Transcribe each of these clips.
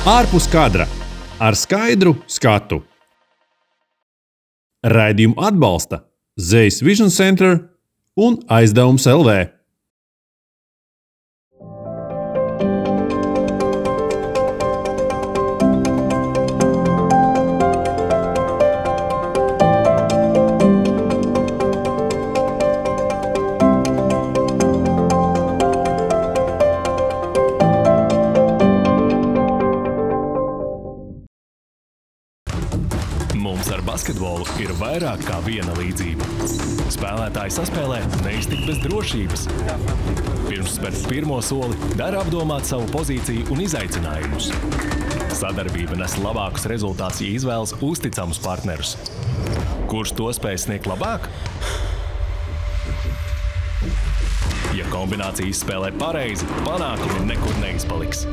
Ārpus kadra ar skaidru skatu. Raidījumu atbalsta Zeiss Vision Center un Aizdevums LV. Basketbolu ir vairāk kā viena līdzība. Spēlētāji saspēlē neiztikt bez drošības. Pirms spērt pirmo soli, dara apdomāt savu pozīciju un izaicinājumus. Sadarbība nes labākus rezultātus, ja izvēlas uzticamus partnerus. Kurš to spēj sniegt labāk? Ja kombinācija izspēlē pareizi, panākumi nekur neizpaliks.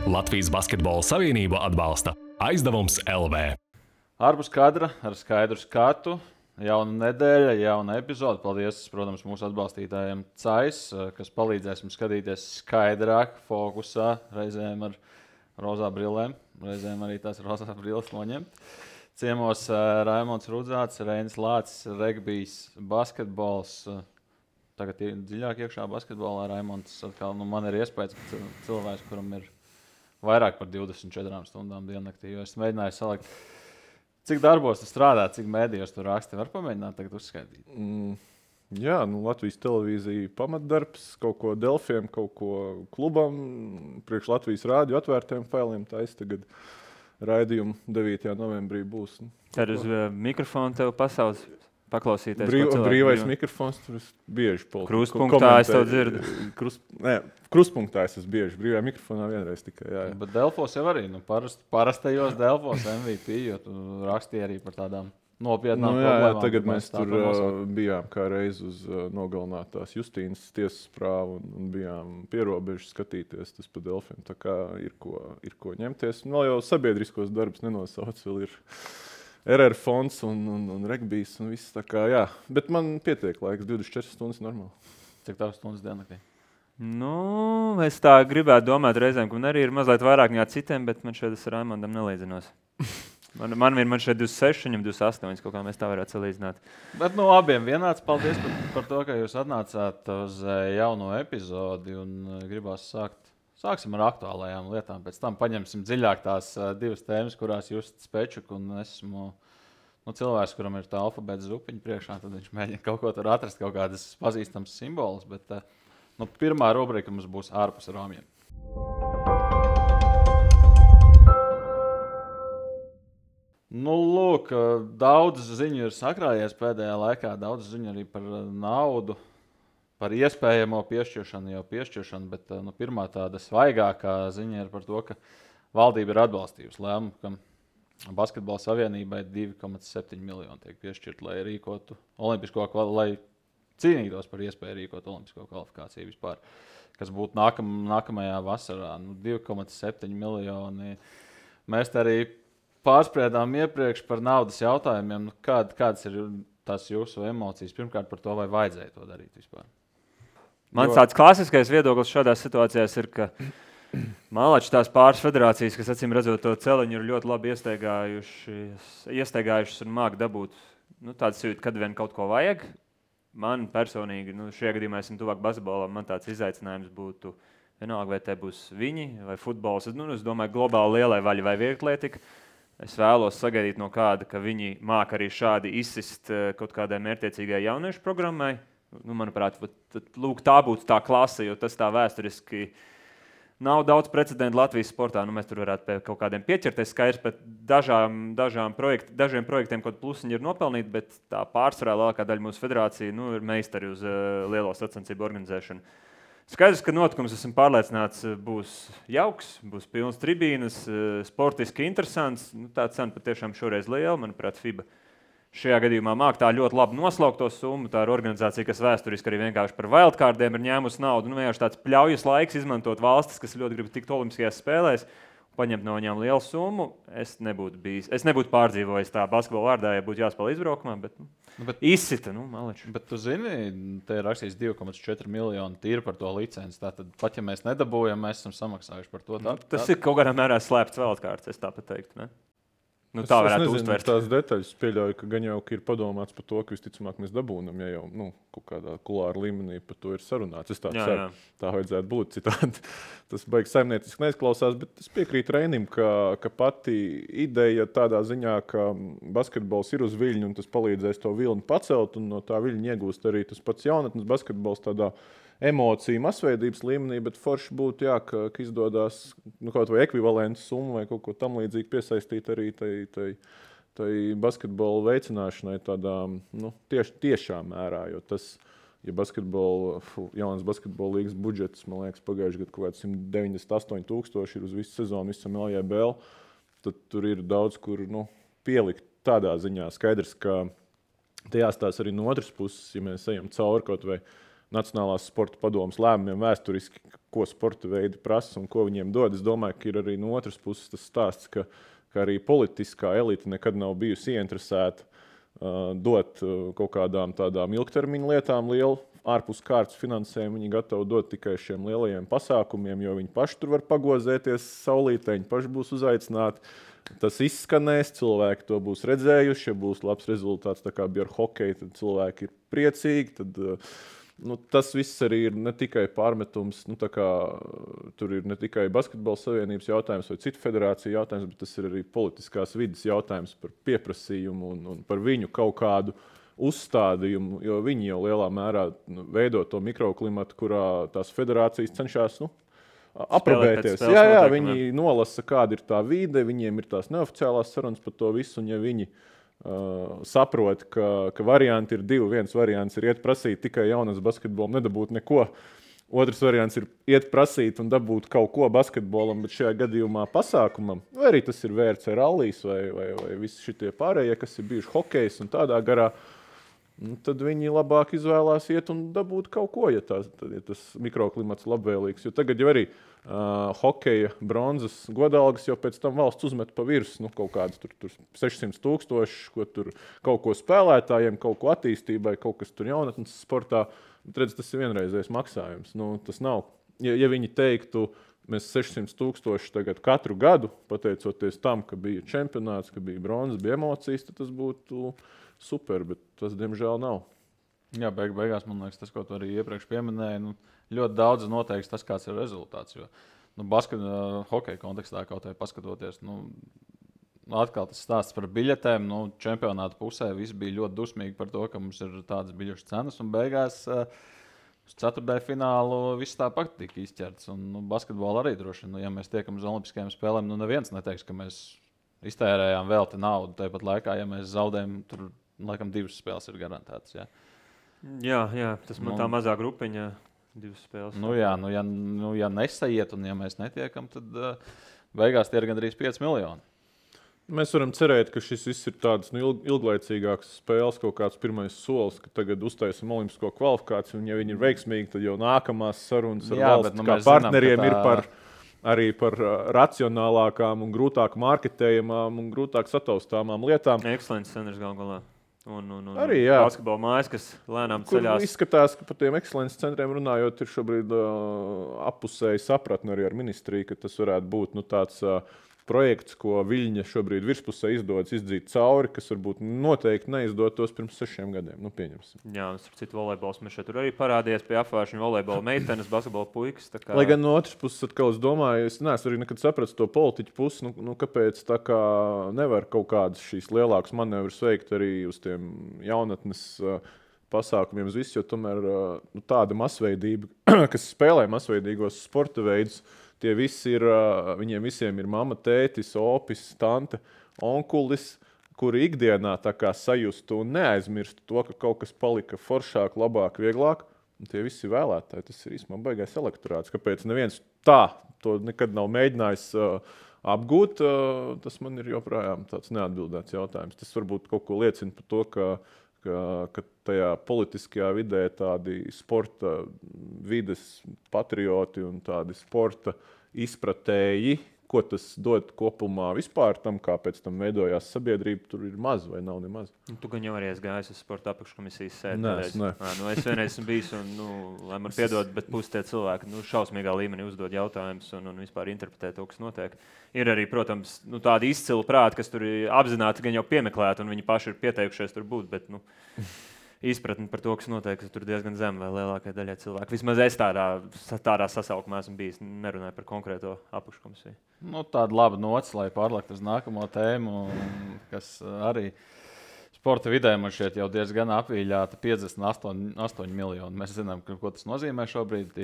Latvijas Basketbola Savienība atbalsta Aizdevums LV. Ārpus kadra ar skaidru skatu, jauna nedēļa, jauna epizode. Paldies, protams, mūsu atbalstītājiem CAIS, kas palīdzēs mums skatīties skaidrāk, fokusā, reizēm ar rozā brillēm, reizēm arī tās rozā brilles noņemt. Ciemos Raimonds Rudzāts, Reinis Lācis, regbijs, basketbols. Tagad dziļāk iekšā basketbolā Raimonds atkal, man ir iespējas, ka cilvēks, kuram ir vairāk par 24 stundām diennaktī, jo es mēģināju salikt. Cik darbos tu strādā, cik mēdījos tu raksti? Var pamēģināt tagad uzskaitīt? Jā, Latvijas televīzija pamatdarbs, kaut ko Delfiem, kaut ko klubam, priekš Latvijas rādio atvērtiem failiem. Taisa tagad raidījumu 9. novembrī būs. Tad uz mikrofonu tev pasaules paklausīties. Brīvais mikrofons, tur es bieži Krustpunktā es tev dzirdu. Krustpunktā es esmu bieži, brīvajā mikrofonā vienreiz tikai. Jā. Bet Delfos jau arī, parastajos Delfos MVP, jo tu rakstīji arī par tādām nopietnām problēmām. Jā, tagad mēs tur bijām kā reiz uz nogalinātās Justīnas tiesas prāvu un bijām pierobežu skatīties tas pa Delfiem. Tā kā ir ko ņemties. Vēl jau sabiedriskos darbus nenosauc, vēl ir RR fonds un regbijs un viss tā kā, jā. Bet man pietiek laiks, 24 stundas normāli. Cik tavas stundas diennaktī? Es tā gribētu domāt reizēm, ka man arī ir mazliet vairāk nekā citiem, bet man šeit ar Raimondam nelīdzinos. Man šeit 26, viņam 28, kaut kā mēs tā varētu salīdzināt. Bet abiem vienāds paldies par to, ka jūs atnācāt uz jauno epizodi un gribās Sāksim ar aktuālajām lietām, pēc tam paņemsim dziļāk tās divas tēmas, kurās Justs Pečuk un esmu cilvēks, kuram ir tā alfabēta zupiņa priekšā, tad viņš mēģina kaut ko tur atrast, kaut kādas pazīstamas simbolus, bet pirmā rubrika mums būs ārpus rāmjiem. Lūk, daudz ziņu ir sakrājies pēdējā laikā, daudz ziņu arī par naudu. Par iespējamo piešķiršanu, bet pirmā tāda svaigākā ziņa ir par to, ka valdība ir atbalstījusi lēmumu, ka Basketbola Savienībai 2,7 miljoni tiek piešķirt, lai rīkotu lai cīnītos par iespēju rīkot olimpisko kvalifikāciju vispār, kas būtu nākamajā vasarā. 2,7 miljoni. Mēs te arī pārspriedām iepriekš par naudas jautājumiem. Kādas ir tās jūsu emocijas? Pirmkārt par to, vai vajadzēja to darīt vispār? Mans tāds klasiskais viedoklis šādās situācijās ir, ka malači tās pāris federācijas, kas acīm redzot to celiņu, ir ļoti labi iestaigājušas un māk dabūt tāds jūtas, kad vien kaut ko vajag. Man personīgi, šajā gadījumā esmu tuvāk basketbolam, man tāds izaicinājums būtu vienalga, vai te būs viņi vai futbols. Es domāju, globāli lielai vaļai vai vieglietika. Es vēlos sagaidīt no kāda, ka viņi māk arī šādi izsist kaut kādai mērķtiecīgai jauniešu programmai. Manuprāt, tā būtu tā klase, jo tas tā vēsturiski nav daudz precedentu Latvijas sportā. Mēs tur varētu pie kaut kādiem pieķerties skaidrs, bet dažiem projektiem kaut plusiņi ir nopelnīti, bet tā pārsvarā lielākā daļa mūsu federācija ir meistari uz lielo sacensību organizēšanu. Skaidrs, ka notikums, esmu pārliecināts, būs jauks, būs pilns tribīnas, sportiski interesants. Tā cena patiešām šoreiz liela, manuprāt, FIBA. Šajā gadījumā māk tā ļoti labi noslaukt to summu. Tā ir organizācija, kas vēsturiski arī vienkārši par wildcardiem ir ņēmusi naudu. Vienkārši tāds pļaujas laiks izmantot valstis, kas ļoti grib tikt olimpiskajās spēlēs. paņemt no viņām lielu summu, es nebūtu pārdzīvojis tā basketbola vārdā, ja būtu jāspēlē izbraukumā, bet izsita, maleči. Bet tu zini, te ir rakstīts 2,4 miljoni tīri par to licenci. Tātad, pat ja mēs nedabūjam, mēs esam samaksājuši par to. Tas ir kaut kādā mērā slēpts vēlkārts, es tā pat teiktu, ne? Tā varētu uztvert. Tās detaļas pieļauju, ka gan jau ir padomāts par to, ka visticamāk mēs dabūnam, ja jau kaut kādā kulāra līmenī par to ir sarunāts. Es tā ceru, tā vajadzētu būt citādi. Tas baigs saimnieciski neizklausās, bet es piekrītu Reinim, ka pati ideja tādā ziņā, ka basketbols ir uz viļņu un tas palīdzēs to vilni pacelt un no tā viļņa iegūst arī tas pats jaunatnes basketbols tādā emociju masveidības līmenī, bet forši būtu, ka izdodas kaut vai ekvivalentu summu vai kaut ko tam līdzīgi piesaistīt arī tai basketbola veicināšanai tādā tiešā mērā, jo tas, ja jaunas basketbola līgas budžets, man liekas, pagājuši gadu kaut kāds 198,000 ir uz visu sezonu, visam LJBL, tad tur ir daudz, kur pielikt tādā ziņā. Skaidrs, ka te jāstās arī no otras puses, ja mēs ejam cauri kaut vai Nacionālās sporta padomes lēmumiem vēsturiski, ko sporta veidi prasa un ko viņiem dod. Es domāju, ka ir arī no otras puses tas stāsts, ka arī politiskā elite nekad nav bijusi ieinteresēta dot kaut kādām tādām ilgtermiņa lietām lielu ārpus kārtas finansējumu. Viņi gatavi dot tikai šiem lielajiem pasākumiem, jo viņi paši tur var pagozēties saulītē, viņi paši būs uzaicināti. Tas izskanēs, cilvēki to būs redzējuši, ja būs labs rezultāts, tā kā bija ar hokeju, tad cilvēki ir priecīgi, tad tas viss arī ir ne tikai pārmetums, tur ir ne tikai basketbola savienības jautājums vai citu federāciju jautājums, bet tas ir arī politiskās vides jautājums par pieprasījumu un par viņu kaut kādu uzstādījumu, jo viņi jau lielā mērā veido to mikroklimatu, kurā tās federācijas cenšas aprobēties. Jā, viņi nolasa, kāda ir tā vide, viņiem ir tās neoficiālās sarunas par to visu, un ja viņi saprot, ka varianti ir divi. Viens variants ir iet prasīt tikai jaunas basketbolam, nedabūt neko. Otrs variants ir iet prasīt un dabūt kaut ko basketbolam, bet šajā gadījumā pasākumam, vai arī tas ir VRC rallijas vai visi šitie pārējie, kas ir bijuši hokejs un tādā garā, tad viņi labāk izvēlās iet un dabūt kaut ko, ja tas mikroklimats labvēlīgs. Jo tagad jau arī hokeja bronzas godalgas jau pēc tam valsts uzmet pa virsmu, kaut kādas tur 600,000, ko tur kaut ko spēlētājiem, kaut ko attīstībai, kaut kas tur jaunatnes sportā. Redz, tas ir vienreizējs maksājums. Tas nav. Ja viņi teiktu, mēs 600,000 tagad katru gadu, pateicoties tam, ka bija čempionāts, ka bija bronzas, bija emocijas, tad tas būtu super, bet tas, diemžēl, nav. Jā, beigās, man liekas, tas, ko tu arī iepriekš pieminēji, ļoti daudz noteiks tas, kāds ir rezultāts. Jo, hokeja kontekstā kaut vai paskatoties, atkal tas stāsts par biļetēm. Čempionāta pusē visi bija ļoti dusmīgi par to, ka mums ir tādas biļešu cenas, un beigās uz ceturtdaļu finālu viss tāpat tika izķerts. Un basketbola arī droši vien, ja mēs tiekam uz Olimpiskajām spēlēm, neviens neteiks, ka mēs iztērējām velti naudu. Tāpat laikā, ja mēs zaudējam, tur laikam 2 spēles ir garantētas. Jā, tas man tā mazā grupiņa 2 spēles. Ja nesaiet un ja mēs netiekam, tad beigās tie ir gandrīz 5 miljoni. Mēs varam cerēt, ka šis viss ir tāds ilglaicīgāks spēles, kaut kāds pirmais solis, ka tagad uztaisam olimpisko kvalifikāciju, un ja viņi ir veiksmīgi, tad jau nākamās sarunas ar valsts kā partneriem ir arī par racionālākām un grūtāk marketējamām un grūtāk sataustāmām lietām. Excellence centers galā. Un arī, jā. Basketbola mājas, kas lēnām ceļās. Izskatās, ka par tiem excellence centriem runājot, ir šobrīd appusēji sapratni arī ar ministriju, ka tas varētu būt tāds projekts, ko Viļņa šobrīd virspusē izdodas izdzīt cauri, kas varbūt noteikti neizdotos pirms 6 gadiem. Pieņemsim. Jā, un citu volejbols mēs šeit arī parādījās pie apvāršņu volejbola meitenes, basketbola puikas. Lai gan no otras puses, atkal es domāju, es neesmu arī nekad sapratis to politiķu pusi, kāpēc tā kā nevar kaut kādas šīs lielākas manevrus veikt arī uz tiem jaunatnes pasākumiem uz visu, jo tomēr tāda masveidība, kas spēlē masveidīgos sporta veidus, tie visi ir, viņiem visiem ir mamma, tētis, opis, tante, onkulis, kuri ikdienā tā kā sajustu un neaizmirstu to, ka kaut kas palika foršāk, labāk, vieglāk. Un tie visi vēlētāji, tas ir īstenībā baigais elektorāts. Kāpēc neviens tā to nekad nav mēģinājis apgūt, tas man ir joprojām tāds neatbildēts jautājums. Tas varbūt kaut ko liecina par to, ka tajā politiskajā vidē tādi sporta vides patrioti un tādi sporta izpratēji ko tas dod kopumā vispār tam, kā pēc tam veidojās sabiedrība, tur ir maz vai nav nemaz. Tu gan jau arī esi gājis uz sporta apakškomisijas sēdi. Nē. Es vienreiz esmu bijis, un, lai man piedod, bet pusi tie cilvēki šausmīgā līmenī uzdod jautājumus un vispār interpretē to, kas notiek. Ir arī, protams, tādi izcili prāti, kas tur ir apzināti gan jau piemeklēti, un viņi paši ir pieteikušies tur būt, bet izpratni par to, kas notiek, tur diezgan zem vai lielākai daļai cilvēku. Vismaz es tādā sasaukumā esmu bijis, nerunāju par konkrēto apakškomisiju. Tāda laba nots, lai pārliektu uz nākamo tēmu, kas arī sporta vidē man šķiet jau diezgan apvīļāta 58 miljoni. Mēs zinām, ko tas nozīmē šobrīd.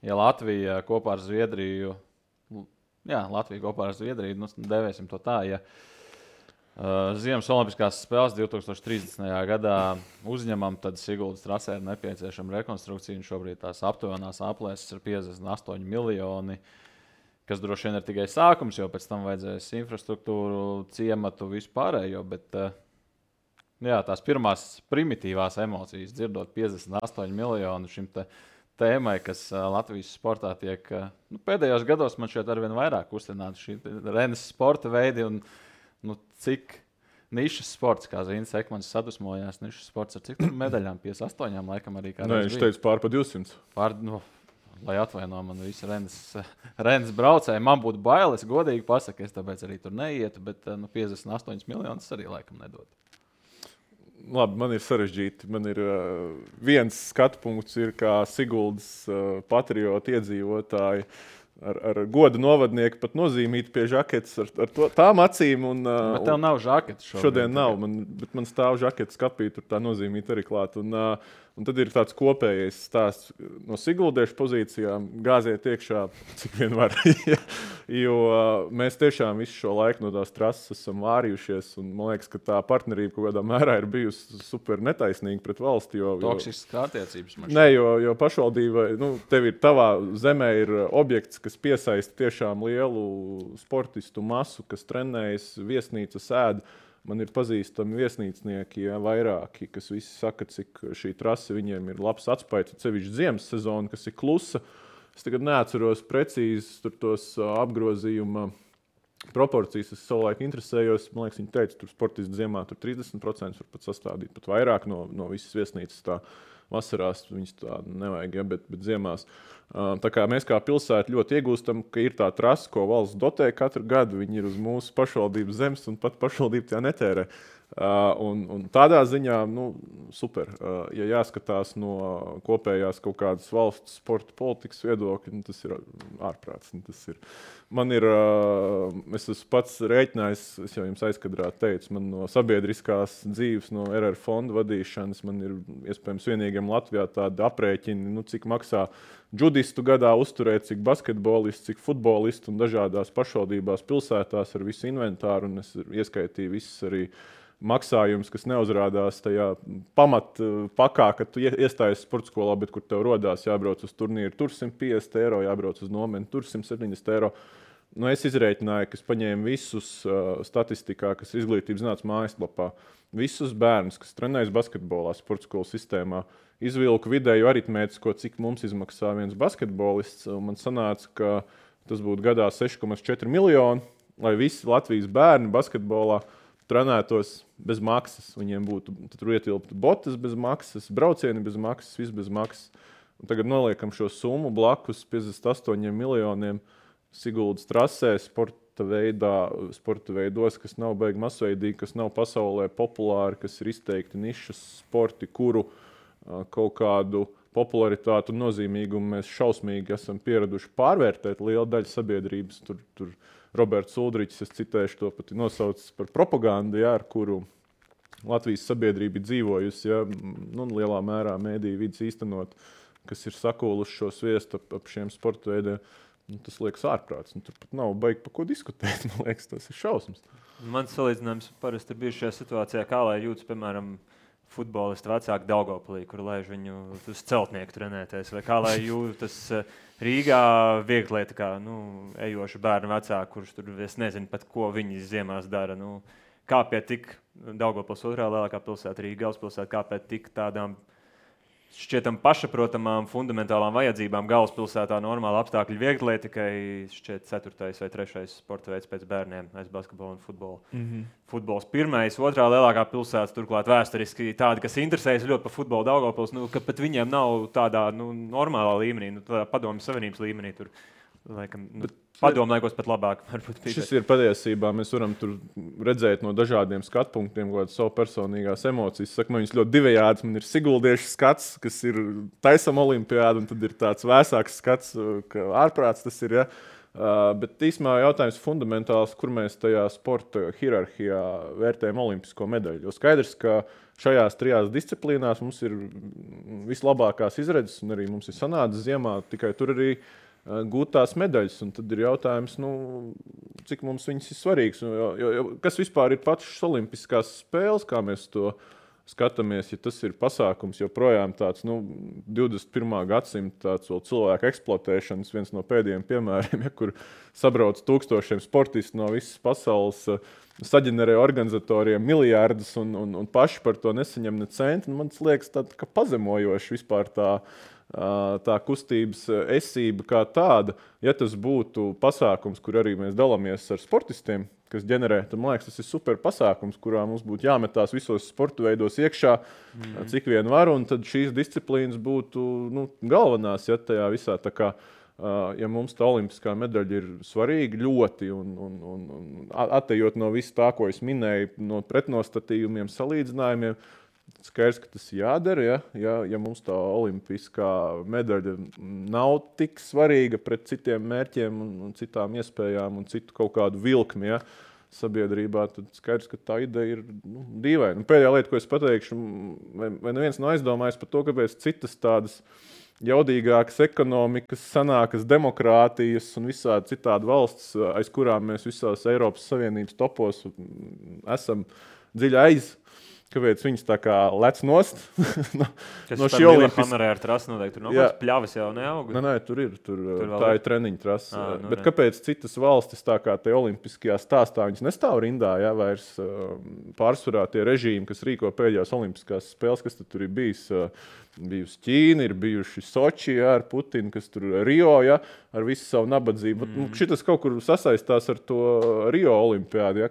Ja Latvija kopā ar Zviedriju, devēsim to tā, Ziemas Olimpiskās spēles 2030. gadā uzņemam, tad Siguldas trasē ir nepieciešama rekonstrukcija. Šobrīd tās aptuvenās aplēses ir 58 miljoni, kas droši vien ir tikai sākums, jo pēc tam vajadzēs infrastruktūru, ciematu, vispārējo. Bet tās pirmās primitīvās emocijas, dzirdot 58 miljonu šim tēmai, kas Latvijas sportā tiek pēdējos gados man šeit arvien vairāk kustināta šī Rennes sporta veidi. Cik nišas sports, kā Zīns Ekmans sadusmojās, nišas sports ar cik medaļām? 58 laikam arī kā. Nē, viņš teica pār pa 200. Lai atvaino man visi Rennes braucēji. Man būtu bailes, godīgi pasaka, es tāpēc arī tur neietu, bet 58 miljonus arī laikam nedod. Labi, man ir sarežģīti. Man ir viens skatu punkts, kā Siguldas patrioti iedzīvotāji. Ar godu novadnieku pat nozīmīt pie žaketes ar tām acīm. Bet tev nav žaketes šodien nav, bet man stāv žaketes kapī, tur tā nozīmīt arī klāt. Un tad ir tāds kopējais stāsts no siguldiešu pozīcijām, gāziet iekšā, cik vien var. Jo mēs tiešām visu šo laiku no tās trases esam vārījušies, un man liekas, ka tā partnerība kaut kādā mērā ir bijusi super netaisnīga pret valsti. Toksiskas attiecības. Nē, jo pašvaldība, tev ir tavā zemē ir objekts, kas piesaista tiešām lielu sportistu masu, kas trenējas, viesnīca sēd. Man ir pazīstami viesnīcnieki, vairāki, kas visi saka, cik šī trase viņiem ir labs atspaids, sevišķi ziemas sezona, kas ir klusa. Es tagad neatceros precīzi tos apgrozījuma proporcijas. Es savulaik interesējos, man liekas, viņi teica, tur sportisti ziemā tur 30% var pat sastādīt, pat vairāk no visas viesnīcas tā. Vasarās viņas tā nevajag, bet ziemās. Tā kā mēs kā pilsēta ļoti iegūstam, ka ir tā trasa, ko valsts dotē katru gadu. Viņi ir uz mūsu pašvaldības zemes un pat pašvaldība tā netērē. Un tādā ziņā, super. Ja jāskatās no kopējās kaut kādas valsts sporta politikas viedokļa, tas ir ārprāts. Es esmu pats rēķinājis, es jau jums aizkadrā teicu, man no sabiedriskās dzīves, no RR fonda vadīšanas, man ir iespējams vienīgiem Latvijā tādi aprēķini, cik maksā džudistu gadā uzturēt, cik basketbolistu, cik futbolistu un dažādās pašvaldībās, pilsētās ar visu inventāru, un es ieskaitīju visas arī maksājums, kas neuzrādās tajā pamatpakā, kad tu iestājies sporta skolā, bet kur tev rodās jābrauc uz turnīru, tur 150 eiro, jābrauc uz nomeni, tur 170 eiro. Es izrēķināju, ka es paņēmu visus statistikā, kas izglītības zinātnes mājaslapā, visus bērnus, kas trenējas basketbolā, sporta skolas sistēmā, izvilku vidēju aritmētisko, cik mums izmaksā viens basketbolists. Man sanāca, ka tas būtu gadā 6,4 miljoni, lai visi Latvijas bērni basketbolā trenētos bez maksas. Viņiem būtu tur ietilptu botas bez maksas, braucieni bez maksas, viss bez maksas. Un tagad noliekam šo summu blakus 58 miljoniem Siguldas trasē, sporta veidos, kas nav baigi masveidīgi, kas nav pasaulē populāri, kas ir izteikti nišas sporti, kuru kaut kādu popularitātu un nozīmīgumu mēs šausmīgi esam pieraduši pārvērtēt. Liela daļa sabiedrības tur Roberts Uldričs, es citēšu to pat nosaucis par propagandu, ar kuru Latvijas sabiedrība ir dzīvojusi, lielā mērā mēdīju vidas īstenot, kas ir sakūluši šo sviestu ap šiem sporta veidiem. Tas liekas ārprāts. Tur pat nav baigi par ko diskutēt. Man liekas, tas ir šausmas. Mans salīdzinājums parasti ir bijis šajā situācijā, kā lai jūtas, piemēram, futbolisti vecāki Daugavpilī, kur laiž viņu uz celtnieku trenēties, vai kā lai jūtas Rīgā vieglieta, kā ejoši bērnu vecāki, kurš tur es nezinu pat, ko viņi ziemās dara. Kā pie tik Daugavpils otrā lielākā pilsēta, Rīga galvaspilsēta, kā pie tik tādām šķietam pašaprotamām fundamentālām vajadzībām galvaspilsētā normāla apstākļi vieglietikai šķiet 4. vai 3. sporta veids pēc bērniem aiz basketbolu un futbolu. Futbols 1. 2. lielākā pilsēta, turklāt vēsturiski tādi, kas interesējas ļoti par futbolu Daugavpils, ka pat viņiem nav tādā normālā līmenī, tādā padomju savienības līmenī tur. Laikam, padomājos pat labāk. Šis ir patiesībā, mēs varam tur redzēt no dažādiem skatpunktiem, kādas savu personīgās emocijas. Saku, man viņas ļoti divējādas, man ir siguldiešu skats, kas ir taisam olimpiādu, un tad ir tāds vēsāks skats, ka ārprāts tas ir, ja. Bet īsumā jautājums fundamentāls, kur mēs tajā sporta hierarhijā vērtējam olimpisko medaļu. Jo skaidrs, ka šajās 3 disciplīnās mums ir vislabākās izredzes, un arī mums ir sanācis ziemā, tikai tur arī gūt tās medaļas, un tad ir jautājums, cik mums viņas ir svarīgas. Jo, kas vispār ir pašas olimpiskās spēles, kā mēs to skatāmies, ja tas ir pasākums, joprojām tāds 21. gadsimta tāds vēl cilvēku eksploatēšanas viens no pēdējiem piemēriem, kur sabrauc tūkstošiem sportistu no visas pasaules, saģenerē organizatoriem miljārdus un paši par to nesaņem ne centi. Man liekas, ka pazemojoši vispār tā kustības esība kā tāda, ja tas būtu pasākums, kur arī mēs dalāmies ar sportistiem, kas ģenerē, tad man liekas, tas ir super pasākums, kurā mums būtu jāmetās visos sporta veidos iekšā, cik vien var, un tad šīs disciplīnas būtu galvenās, ja tajā visā tā kā, ja mums tā olimpiskā medaļa ir svarīga ļoti, un attejot no visu tā, ko es minēju, no pretnostatījumiem, salīdzinājumiem, skaidrs, ka tas jādara, ja mums tā olimpiskā medaļa nav tik svarīga pret citiem mērķiem un citām iespējām un citu kaut kādu vilkmi, sabiedrībā, tad skaidrs, ka tā ideja ir dīvaina. Pēdējā lieta, ko es pateikšu, vai neviens nav aizdomājis par to, kāpēc citas tādas jaudīgākas ekonomikas, sanākas demokrātijas un visādi citādi valsts, aiz kurām mēs visās Eiropas Savienības topos esam dziļi aiz, kāpēc viņas tā kā lec nost no šī olimpiskā. Hamerē ar trasu noteikti, tur nav kāds pļavas jau neaug. Nē, tur ir. Tā ir treniņa trasa. Bet kāpēc citas valstis tā kā te olimpiskajā stāstā, viņas nestāv rindā, vairs pārsvarā tie režīmi, kas rīko pēdējās olimpiskās spēles, kas tur ir bijis. Bijusi Ķīna, ir bijuši Soči ar Putinu, kas tur Rio, ar visu savu nabadzību. Šitas kaut kur sasaistās ar to Rio olimpiādi,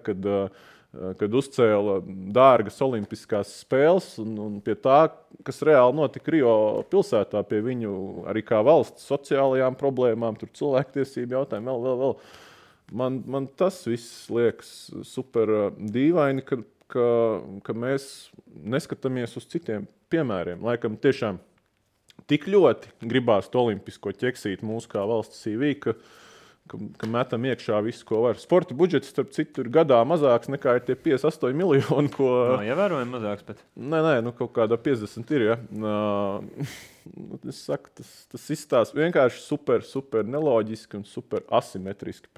kad uzcēla dārgas olimpiskās spēles un pie tā, kas reāli notika Rio pilsētā, pie viņu arī kā valsts sociālajām problēmām, tur cilvēktiesību jautājumu, vēl. Man tas viss liekas super dīvaini, ka mēs neskatāmies uz citiem piemēriem. Laikam tiešām tik ļoti gribās to olimpisko ķeksīt mūsu kā valsts CV, ka metam iekšā visu, ko var. Sporta budžets, starp citu, ir gadā mazāks nekā ir tie 58 miljoni, ko... Ievērojami mazāks, bet... Nē, kaut kādā 50 ir, Es saku, tas izstāsta vienkārši super neloģiski un super asimetriski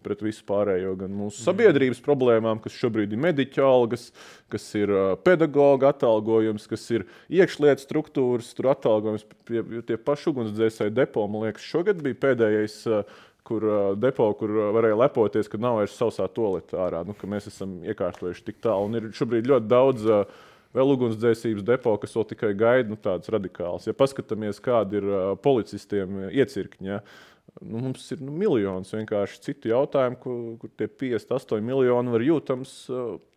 pret visu pārējo, gan mūsu sabiedrības problēmām, kas šobrīd ir mediķu algas, kas ir pedagoga atalgojums, kas ir iekšlietu struktūras, tur atalgojums, tie paši ugunsdzēsēji depo, man liekas, šogad bija pēdējais depo, kur varēja lepoties, ka nav vairs sausā toaleta ārā, ka mēs esam iekārtojuši tik tālu. Un ir šobrīd ļoti daudz vēl ugunsdzēsības depo, kas vēl tikai gaida tādas radikālas. Ja paskatāmies, kādi ir policistiem iecirkņi, mums ir miljonus vienkārši citu jautājumu, kur tie 58 miljoni var jūtams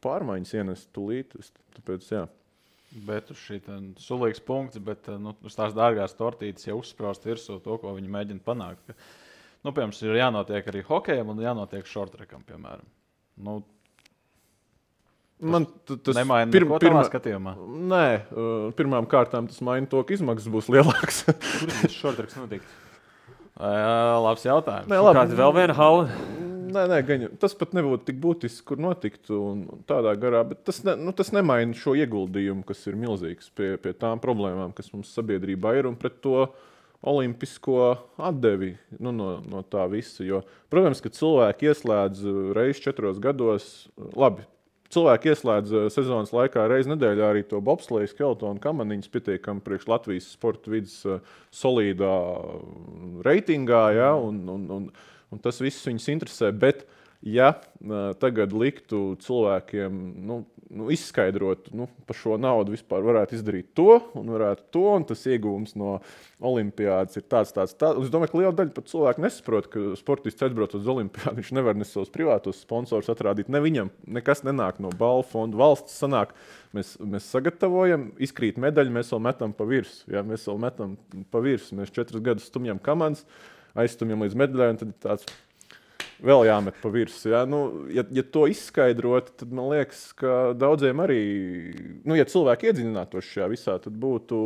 pārmaiņas ienest tūlīt. Tāpēc, Bet uz šī sulīgs punkts, bet uz tās dārgās tortītes jau uzspraust virsū to, ko viņi mēģina panākt. Piemēram, ir jānotiek arī hokejam un jānotiek šortrekam, piemēram. Tas nemaina neko tavā skatījumā? Nē, pirmām kārtām tas maina to, ka izmaksas būs lielāks. Kur tas šortreks notikt? Labs jautājums. Kāda vēl viena hala? Nē, tas pat nebūtu tik būtisks, kur notiktu un tādā garā, bet tas nemaina šo ieguldījumu, kas ir milzīgs pie tām problēmām, kas mums sabiedrībā ir un pret to olimpisko atdevi no tā visa. Jo, protams, ka cilvēki ieslēdz reizi 4 gados, cilvēki ieslēdz sezonas laikā reizi nedēļā arī to bobsleju, skeletonu, kamaniņas pietiekami priekš Latvijas sporta vidas solīdā reitingā, un tas viss viņus interesē, bet ja tagad liktu cilvēkiem izskaidrot, par šo naudu vispār varētu izdarīt to, un tas iegūms no olimpiādas ir tāds. Es domāju, ka liela daļa pat cilvēku nesaprot, ka sportists aizbraucot uz olimpiādu, viņš nevar ne savus privātos sponsorus atrādīt, ne viņam nekas nenāk no balvu fonda. Valsts sanāk, mēs sagatavojam, izkrīt medaļu, mēs vēl metam pa virsmu. Ja? Mēs 4 gadus stumjam komandas, aizstumjam līdz medaļai, un tad tāds vēl jāmet pa virsmu. Ja? Ja to izskaidrot, tad man liekas, ka daudziem arī, ja cilvēki iedziļinātos šajā visā, tad būtu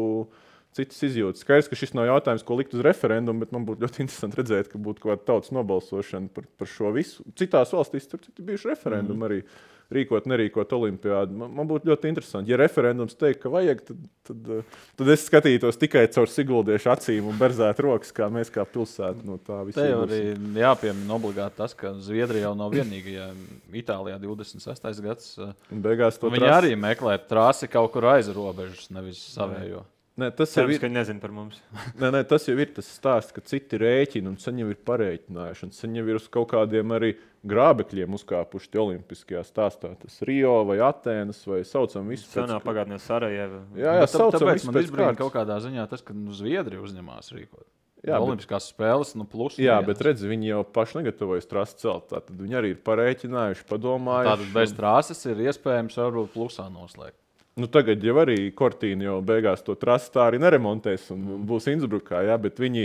citas izjūtas. Skaidrs, ka šis nav jautājums, ko likt uz referendumu, bet man būtu ļoti interesanti redzēt, ka būtu kaut kāda tautas nobalsošana par šo visu. Citās valstīs tur bijuši referendumi arī rīkot, nerīkot olimpiādu. Man būtu ļoti interesanti. Ja referendums teikt, ka vajag, tad es skatītos tikai caur Siguldiešu acīm un berzētu rokas, kā mēs kā pilsēta no tā visu. Te jau arī jāpiemina obligāti tas, ka Zviedrija jau nav vienīgajā. Itālijā 26. gads. Beigās to viņi arī meklē trasi kaut kur aiz robežas, nevis savējo. Nē, tas jau ir, ka nezinu par mums. Nē, tas jau ir tas stāsts, ka citi rēķina un sen jau ir parēķinājuši. Sen jau ir uz kaut kādiem arī grābekļiem uzkāpuši tie olimpiskajā stāstā. Tas Rio vai Atēnas vai saucam visu pēc... Senā pagātnē Sarajeva. Jā, saucam tāpēc visu man pēc izbrīna kārtas. kaut kādā ziņā tas, ka Zviedrija uzņemās rīkot. Jā, Olimpiskās spēles, plus. Jā, bet redzi, viņi jau paši negatavojas trasi celt. Tātad viņi arī ir parēķinājuši, padomājuši. Tātad bez trases ir iespējams varbūt plusā noslēgt. Tagad jau arī Cortina jau beigās to trasi tā arī neremontēs un būs Innsbrukā, jā, bet viņi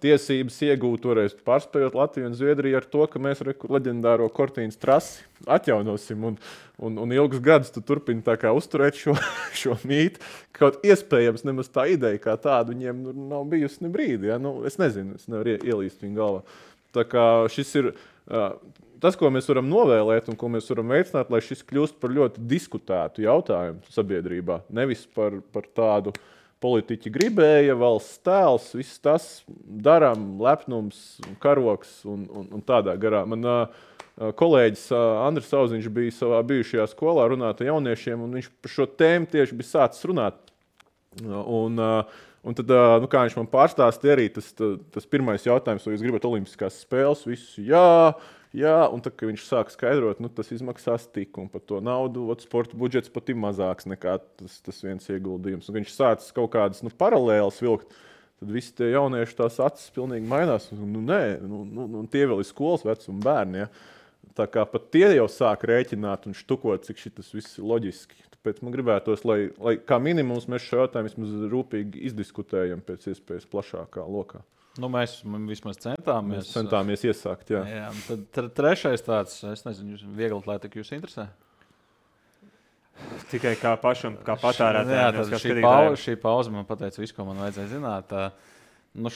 tiesības iegūt toreiz pārspējot Latviju un Zviedriju ar to, ka mēs leģendāro Cortinas trasi atjaunosim un ilgus gadus tu turpini tā kā uzturēt šo mītu. Kaut iespējams nemaz tā ideja kā tāda viņiem nav bijusi ne brīdi, jā. Es nezinu, es nevaru ielīst viņu galvā. Tā kā šis ir... Tas, ko mēs varam novēlēt un ko mēs varam veicināt, lai šis kļūst par ļoti diskutētu jautājumu sabiedrībā. Nevis par tādu politiķi gribēja, valsts tēls, viss tas darām, lepnums, karoks un tādā garā. Man kolēģis Andris Sauziņš bija savā bijušajā skolā runāt ar jauniešiem, un viņš par šo tēmu tieši bija sācis runāt. Un tad, kā viņš man pārstāstīja arī, tas pirmais jautājums, vai jūs gribat olimpiskās spēles, visu jā, un tad, kad viņš sāk skaidrot, tas izmaksās tik, un par to naudu, sporta budžets pat ir mazāks nekā tas viens ieguldījums. Un viņš sācis kaut kādas paralēlas vilkt, tad visi tie jaunieši tās acis pilnīgi mainās. Tie vēl ir skolas vecuma bērni, ja. Tā kā pat tie jau sāk rēķināt un štukot, cik šitas viss ir loģiski. Tāpēc man gribētos, lai kā minimums mēs šo jautājumu vismaz rūpīgi izdiskutējam pēc iespējas plašākā lokā. Mēs vismaz centāmies. Mēs centāmies iesākt, jā. Tad trešais tāds, es nezinu, viegli atlētika jūs interesē? Tikai kā pašam, kā patērētājiem. Šī pauze man pateica visu, ko man vajadzēja zināt.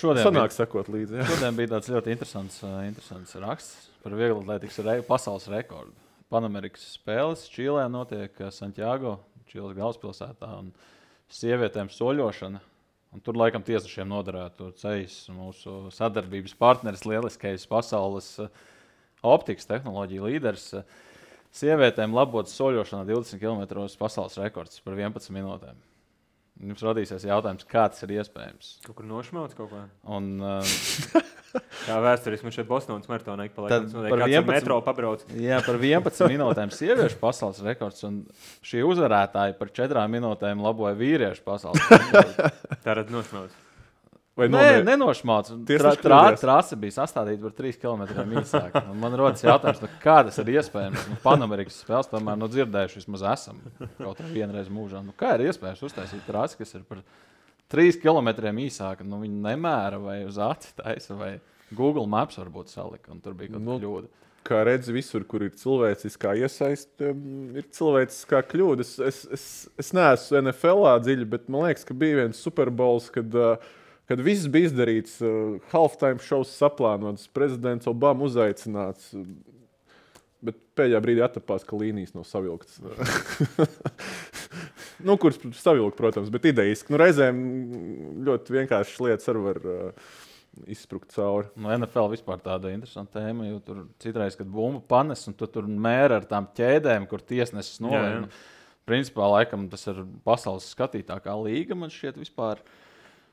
Šodien sanāk sekot līdzi, jā. Šodien bija tāds ļoti interesants raksts par viegli atlētikas pasaules rekordu. Panamerikas spēles Čīlē notiek Santiago, Čīles galvaspilsētā, un sievietēm soļošana. Un tur laikam tiesnešiem noderētu ceļš mūsu sadarbības partneris, lieliskais pasaules optikas tehnoloģija līderis. Sievietēm labotas soļošanā 20 km pasaules rekords par 11 minūtēm. Jums radīsies jautājums, kā tas ir iespējams? Kaut kur nošmauts kaut kā? Kā vēsturiski man šeit Bostonas maratonā ik pa laikam. Par 11 metro pabrauc. Jā, par 11 minūtēm sieviešu pasaules rekords, un šī uzvarētāja par 4 minūtēm laboja vīriešu pasaules rekordu. Tā rad nošmauts. Nē, nenošmauts. Trase bija sastādīta par 3 km īsāk. Man rodas jautājums, kā tas ir iespējams. Panamerikas spēles tomēr dzirdējuši vismaz esam kaut kā vienreiz mūžā. Kā ir iespējams uztaisīt trasi, kas ir par 3 km īsāka? Viņi nemēra vai uz aci taisa, vai Google Maps varbūt salika, un tur bija kaut kāda kļūda. Kā redzi, visur, kur ir cilvēciskā iesaiste, ir cilvēciskā kļūda. Es neesmu NFL-ā dziļi, bet man liekas, ka bija viens Super Bowls, kad viss bija izdarīts, halftime šovs saplānots, prezidents Obama uzaicināts, bet pēdējā brīdī attapās, ka līnijas nav savilktas. Kuras savilkt, protams, bet idejiski. Reizēm ļoti vienkāršas lietas arī var izsprukt cauri. NFL vispār tāda interesanta tēma, jo tur citreiz, kad bumbu panes, un tur mēra ar tām ķēdēm, kur tiesnesis nolēma. Principā, laikam, tas ir pasaules skatītākā līga, man šķiet vispār.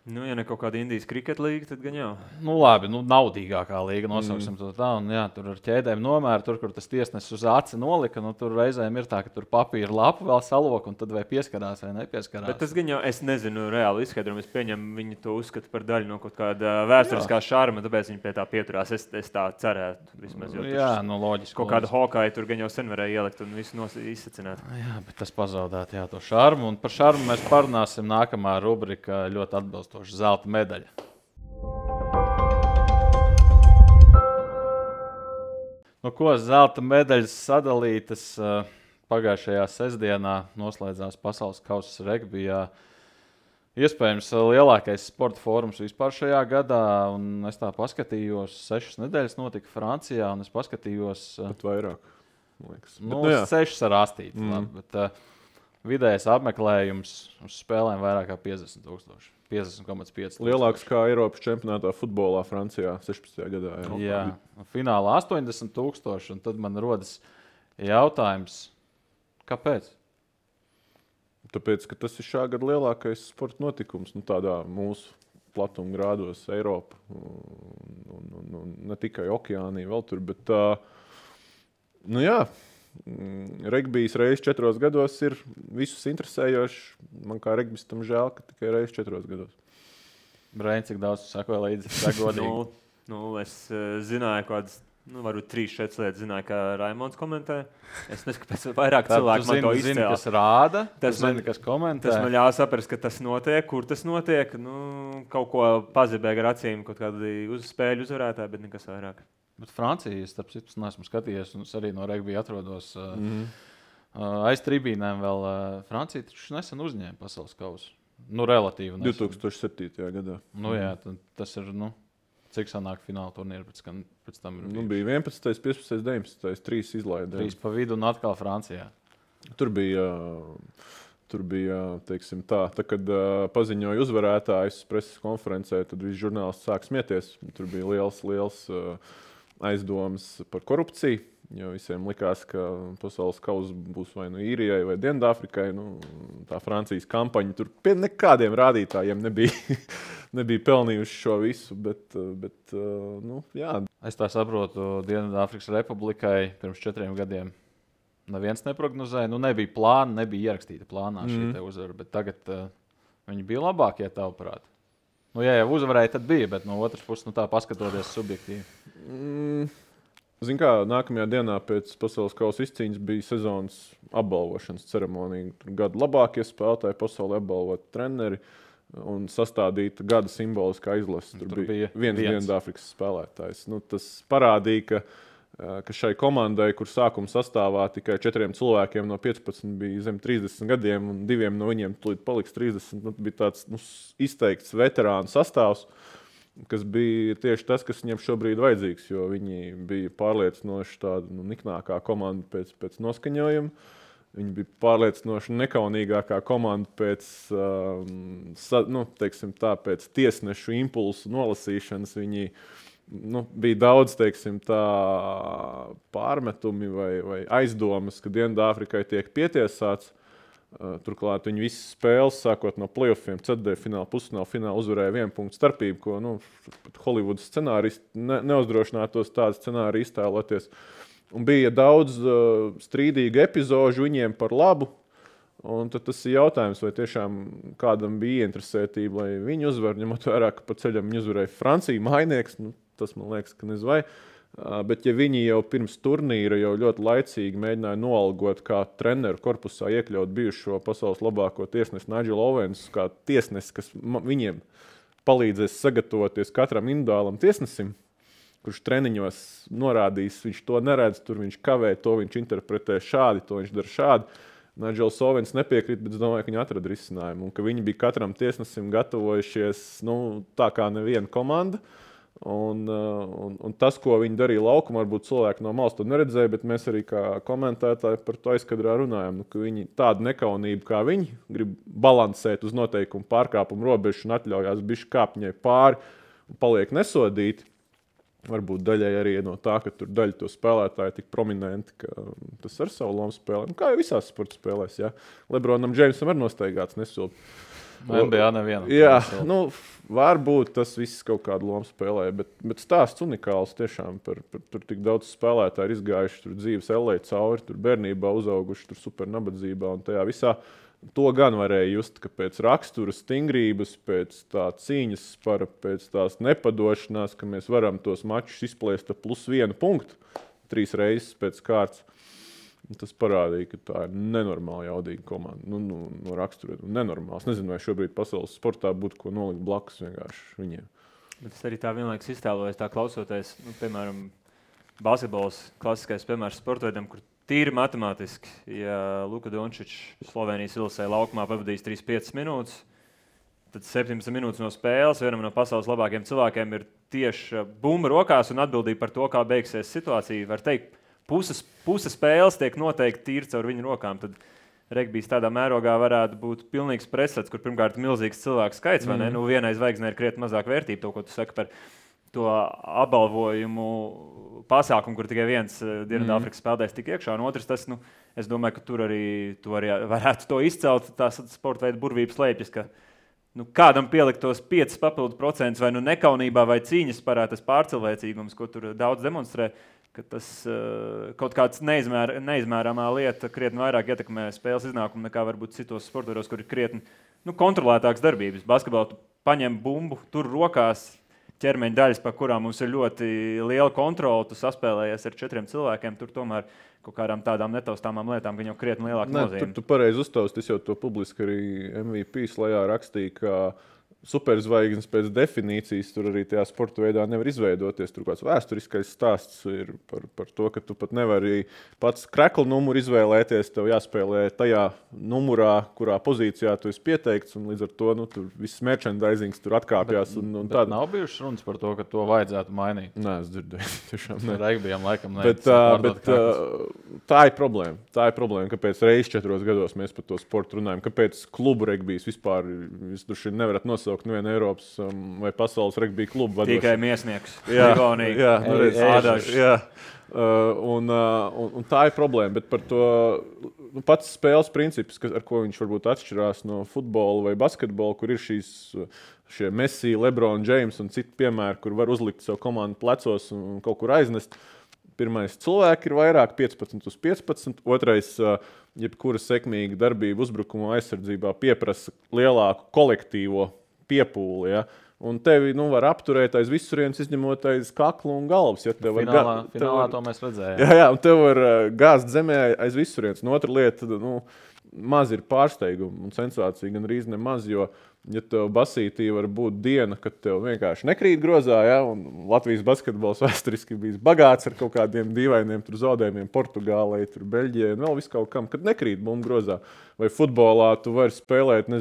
Nu, ja ne kaut kāda Indijas kriketa līga, tad gan jau. Nu, labi, naudīgākā līga, nosauksim to tā. Un, jā, tur ar ķēdēm nomēra, tur, kur tas tiesnesis uz aci nolika. Tur reizēm ir tā, ka tur papīra lapu vēl salok, un tad vai pieskarās vai nepieskarās. Bet tas gan jau, es nezinu reāli izskaidrojumu. Es pieņemu, viņi to uzskata par daļu no kaut kāda vēsturiskā šarma, tāpēc viņi pie tā pieturās. Es tā cerētu. Vismaz, jā, loģiski. Kaut kādu Hawkeye tur gan jau sen varēja ielikt un visu izsacināt. Jā, bet tas pazaudēt, jā, to šarmu. Un par šarmu mēs parunāsim nākamā rubrika ļoti atbilstoši. Zelta medaļa. Nu, ko zelta medaļas sadalītas pagājušajā sestdienā noslēdzās Pasaules kausa regbijā. Iespējams, lielākais sporta fórums vispār šajā gadā. Un es tā paskatījos, 6 nedēļas notika Francijā, un es paskatījos... Bet vairāk, man liekas. Nu, 6 ar astīti. Bet vidējais apmeklējums uz spēlēm vairāk kā 50,000. 50,5. Lielāks kā Eiropas čempionātā futbolā Francijā 16. gadā. Jā, finālā 80,000. Un tad man rodas jautājums, kāpēc? Tāpēc, ka tas ir šā gada lielākais sporta notikums, tādā mūsu platuma grādos, Eiropa. Un ne tikai okeānī vēl tur, bet regbijs reizes 4 gados ir visus interesējošs. Man kā regbistam žēl, ka tikai reizes 4 gados. Brain, cik daudz tu sakoji līdzi? Es zināju kādas, varbūt 3-4 lietas zināju, kā Raimonds komentē. Es nezinu, kāpēc vairāk cilvēku man to izcēla. Kas rāda, kas komentē. Tas man ļāva saprast, ka tas notiek, kur tas notiek. Kaut ko pazibēja ar acīm, kaut kādu spēļu uzvarētāju, bet nekas vairāk. Bet Francija, starp citu, neesmu skatījies, un es arī no regbija atrodos aiz tribīnēm vēl. Francija taču nesen uzņēma pasaules kausu. Relatīvi nesen. 2007. gadā. Jā, tas ir, cik sanāk fināla turnīra pēc tam ir. Bija 11, 15, 19, 3 izlaidē. 3 pa vidu un atkal Francijā. Tur bija, teiksim tā, kad paziņoja uzvarētājus preses konferencē, tad visi žurnālisti sāk smieties. Tur bija liels aizdomas par korupciju, jo visiem likās, ka pasaules kausa būs vai Īrijai vai Dienvidāfrikai. Tā Francijas kampaņa tur pie nekādiem rādītājiem nebija pelnījuši šo visu, bet jā. Es tā saprotu, Dienvidāfrikas Republikai pirms 4 gadiem neviens neprognozēja. Nebija plāna, nebija ierakstīta plānā šī te uzvara, bet tagad viņi bija labākie tavuprāt. Ja jau uzvarēja, tad bija, bet no otras puses, tā paskatoties subjektīvi. Zini kā, nākamajā dienā pēc pasaules kausa izcīņas bija sezonas apbalvošanas ceremonija. Tur gadu labākie spēlētāji pasaulē apbalvot treneri un sastādīta gada simboliskā izlase. Tur bija viens Dienvidāfrikas spēlētājs. Tas parādīja, ka šai komandai, kur sākuma sastāvā tikai 4 cilvēkiem no 15 bija zem 30 gadiem un 2 no viņiem tūlīt paliks 30, bija tāds izteikts veterānu sastāvs, kas bija tieši tas, kas viņiem šobrīd vajadzīgs, jo viņi bija pārliecinoši tāda niknākā komanda pēc noskaņojuma. Viņi bija pārliecinoši nekaunīgākā komanda pēc tiesnešu impulsu nolasīšanas. Viņi bija daudz, pārmetumi vai aizdomas, ka Dienvidāfrikai tiek pietiesāts. Turklāt viņi visas spēles, sākot no playoffiem, ceturtdaļfināla, pusfināla, fināla uzvarēja 1 punktu starpību, ko Holivudas scenāristi neuzdrošinātos tādu scenāriju iztēloties. Un bija daudz strīdīgu epizožu viņiem par labu. Un tad tas ir jautājums, vai tiešām kādam bija ieinteresētība, lai viņi uzvar, ņemot vērā, ka pa ceļam viņi uzvarēja Franciju, mājnieks. Tas man liekas, ka nezinu vai. Bet ja viņi jau pirms turnīra jau ļoti laicīgi mēģināja noalgot kā treneru korpusā iekļaut bijušo pasaules labāko tiesnesi Nigelu Owensu, kā tiesnesi, kas viņiem palīdzēs sagatavoties katram individuālam tiesnesim, kurš treniņos norādīs, viņš to neredz, tur viņš kavē, to viņš interpretē šādi, to viņš dara šādi. Nigels Owens nepiekrīt, bet es domāju, ka viņi atrada risinājumu un ka viņi bija katram tiesnesim gatavojušies tā kā neviena komanda. Un tas, ko viņi darīja laukumā, varbūt cilvēki no malas to neredzēja, bet mēs arī kā komentētāji par to aizkadrā runājam, ka viņi tādu nekaunību kā viņi grib balansēt uz noteikumu pārkāpumu robežu un atļaujās bišķi kāpt viņai pāri un paliek nesodīti. Varbūt daļai arī no tā, ka tur daļa to spēlētāji tik prominenti, ka tas ar savu lomu spēlē. Kā jau visās sporta spēlēs, jā. Lebronam Džeimsam arī nostaigāts nesilpi. NBA nevienam. Jā, nu, varbūt tas viss kaut kādu lomu spēlē, bet stāsts unikāls tiešām par tur tik daudz spēlētāju ir izgājuši, tur dzīves ellē cauri, tur bērnībā uzauguši, tur super nabadzībā un tajā visā. To gan varēja just, ka pēc rakstura stingrības, pēc tā cīņas spara, pēc tās nepadošanās, ka mēs varam tos mačus izplēst ar +1 punktu 3 reizes pēc kārtas. Tas parādīja, ka tā ir nenormāli jaudīga komanda. No rakstura nenormāls. Nezinu, vai šobrīd pasaules sportā būtu ko nolikt blakus vienkārši viņiem. Bet es arī tā vienlaikus iztēlojos, tā klausoties, piemēram, basketbols, klasiskais piemērs sportveidam, kur tīri matemātiski, ja Luka Dončičs Slovenijas Ilsē laukumā pavadīs 3-5 minūtes, tad 17 minūtes no spēles vienam no pasaules labākiem cilvēkiem ir tieši bumba rokās un atbildība par to, kā beigsies situācija. Var teikt, puse spēles tiek noteikti tīri caur viņu rokām. Tad regbijs tādā mērogā varētu būt pilnīgs presets, kur pirmkārt milzīgs cilvēku skaits, vai ne? Nu, vienai zvaigznei ir krietni mazāk vērtība, to, ko tu saki par to apbalvojumu pasākumu, kur tikai viens Dienvidāfrikas spēlētājs tik iekšā, un otrs tas, es domāju, ka tur arī varētu to izcelt, tās sporta veida burvības slēpjas, ka kādam pielikt tos 5% vai nekaunībā vai cīņas parā tas pārcilvēcīgums, ko tur daudz demonstrē, ka tas kaut kāds neizmērāmā lieta krietni vairāk ietekmē spēles iznākumu nekā varbūt citos sportos, kur ir krietni kontrolētāks darbības. Basketbolā tu paņem bumbu, tur rokās ķermeņa daļas, par kurām mums ir ļoti liela kontrola, tu saspēlējies ar 4 cilvēkiem, tur tomēr kaut kādām tādām netaustāmām lietām, gan jau krietni lielāka nozīme. Tu pareizi uztausti, es jau to publiski arī MVP slajā rakstīju, ka superzvaigznes pēc definīcijas tur arī tajā sporta veidā nevar izveidoties. Tur kāds vēsturiskais stāsts ir par to, ka tu pat nevari pats krekla numuru izvēlēties. Tev jāspēlē tajā numurā, kurā pozīcijā tu esi pieteikts, un līdz ar to tur viss merchandisings tur atkāpjas. Bet nav bijušas runas par to, ka to vajadzētu mainīt. Nē, es dzirdēju. Tiešām ne. Regbijam laikam bet tā ir problēma. Tā ir problēma, kāpēc reizes 4 gados mēs par to sportu runājam. Kāpēc klubu regbijs vispār jūs nevarat nosaukt nevienu Eiropas vai pasaules regbija klubu vadošu. Tikai Miesnieks. Jā. Un tā ir problēma, bet par to pats spēles princips, ar ko viņš varbūt atšķirās no futbola vai basketbola, kur ir šie Messi, LeBron James un citi piemēri, kur var uzlikt savu komandu plecos un kaut kur aiznest. Pirmais cilvēki ir vairāk 15/15, otrais jebkura sekmīga darbība uzbrukuma aizsardzībā pieprasa lielāku kolektīvo piepūli, ja? Un tevi var apturēt aiz visurienes, izņemot aiz kakla un galvas. Ja? Finālā to mēs redzējām. Jā, un tev var gāzt zemē aiz visurienes. Un otra lieta, maz ir pārsteiguma un sensācija, gan arī nemaz, jo ja tev basītī var būt diena, kad tev vienkārši nekrīt grozā, ja? Un Latvijas basketbols vēsturiski bijis bagāts ar kaut kādiem dīvainiem zaudējumiem Portugālei, Beļģijai un vēl visu kaut kam, kad nekrīt bumbu grozā. Vai futbolā tu vari spēlēt,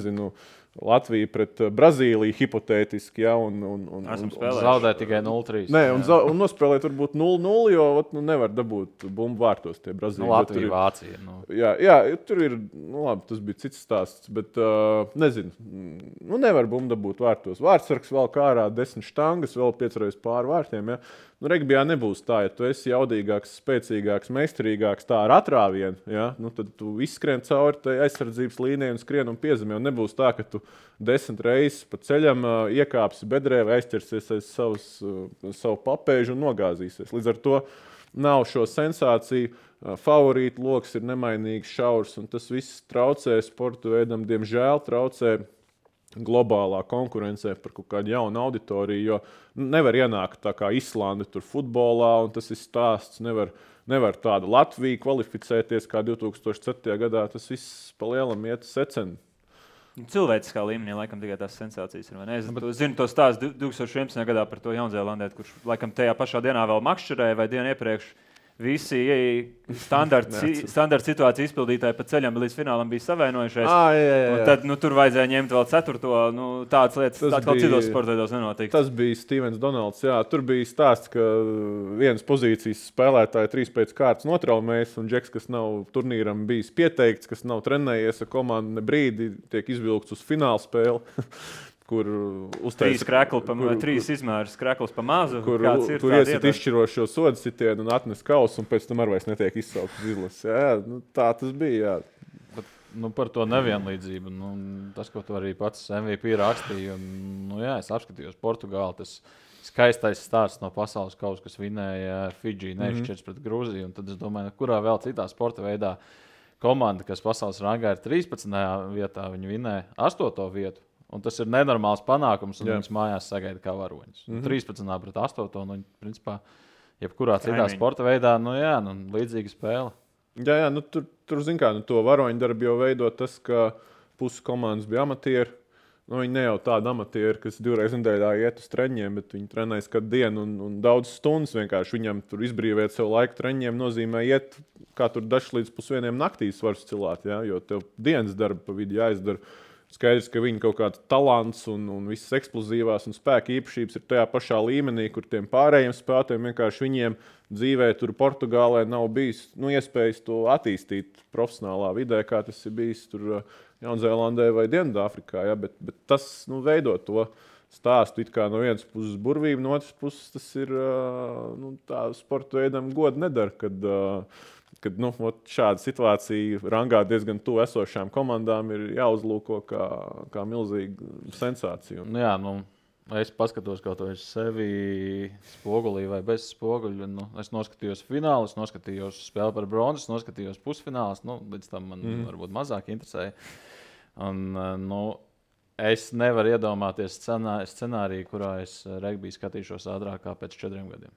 Latvija pret Brazīliju hipotētiski, ja, un zaudēt tikai 0-3. Nē, un nospēlēt varbūt 0-0, jo nevar dabūt bumbu vārtos tie Brazīļi. Latvija, Vācija. Jā, tur ir, labi, tas bija cits stāsts, bet nezinu, nevar bumbu dabūt vārtos. Vārtsargs vēl kārā 10 štangas, vēl 5 reizes pāri vārtiem, ja. Regbijā nebūs tā, ja tu esi jaudīgāks, spēcīgāks, meistarīgāks tā ar atrāvienu, ja? Tad tu izskrien cauri tai aizsardzības līnijai un skrien un piezemē. Un nebūs tā, ka tu 10 reizes pa ceļam iekāpsi bedrē vai aizķersies aiz savu papēžu un nogāzīsies. Līdz ar to nav šo sensāciju. Favorītu loks ir nemainīgs šaurs, un tas viss traucē sportu veidam, diemžēl traucē globālā konkurencē par kaut kādu jaunu auditoriju, jo nevar ienākt tā kā Islanda tur futbolā, un tas ir stāsts, nevar tāda Latvija kvalificēties kā 2007. gadā, tas viss pa lielam iet secen. Cilvēciskā līmenī laikam tikai tās sensācijas ir, vai ne? Es zinu to stāstu 2011. gadā par to Jaunzēlandētu, kurš laikam tajā pašā dienā vēl makšķerēja vai dienu iepriekš. Visi standarta situāciju izpildītāji pa ceļam līdz finālam bija savienojušies. Jā. Tad tur vajadzēja ņemt vēl 4. Tādas lietas, kā citos sportos nenotiek. Tas bija Stevens Donalds. Jā, tur bija stāsts, ka vienas pozīcijas spēlētāji 3 pēc kārtas notraumējas, un Džeks, kas nav turnīram bijis pieteikts, kas nav trenējies ar komandu ne brīdi, tiek izvilkts uz fināla spēli. Kur uztaisa 3 izmērs krekls pa mazu. Kur iesit izšķirošo sodu sitienu un atnes kausu, un pēc tam arī vairs netiek izsaukts izlases. Jā, tā tas bija. Jā. par to nevienlīdzību. Tas, ko tu arī pats MVP rakstīji, es apskatījos Portugāli. Tas skaistais stāsts no pasaules kausa, kas vinēja Fidži neizšķirts pret Grūziju. Tad es domāju, kurā vēl citā sporta veidā komanda, kas pasaules rangā ir 13. vietā, viņi vinēja 8. vietu. Un tas ir nenormāls panākums, un viņas mājās sagaida kā varoņus. 13. pret 8. Principā, jebkurā citā sporta veidā, līdzīga spēle. Jā, tur zin kā, to varoņu darbu jau veido tas, ka pusi komandas bija amatieri. Viņi ne jau tādi amatieri, kas 2 reizes nedēļā iet uz treņiem, bet viņi trenējas katru dienu un daudz stundas vienkārši. Viņam tur izbrīvēt sev laiku treņiem nozīmē iet, kā tur dažs līdz 1:00 naktīs var cilāt, ja? Jo tev dienas darba pa vidu jāizdara. Skaidrs, ka viņi kaut kāds talants un visas eksplozīvās un spēka īpašības ir tajā pašā līmenī, kur tiem pārējiem spēlētājiem vienkārši viņiem dzīvē tur Portugālē nav bijis iespējas to attīstīt profesionālā vidē, kā tas ir bijis tur Jaunzēlandē vai Dienvidāfrikā. Ja? Bet tas veido to stāstu it kā no vienas puses burvību, no otras puses tas ir tā sporta veidam godu nedara, kad šāda situācija rangā diezgan tuvu esošām komandām ir jāuzlūko kā milzīga sensācija. Es paskatos kaut ko sevi spogulī vai bez spoguļa. Es noskatījos finālu, es noskatījos spēli par bronzu, es noskatījos pusfinālus. Līdz tam man varbūt mazāk interesēja. Es nevaru iedomāties scenāriju, kurā es regbiju skatīšos ātrāk kā pēc 4 gadiem.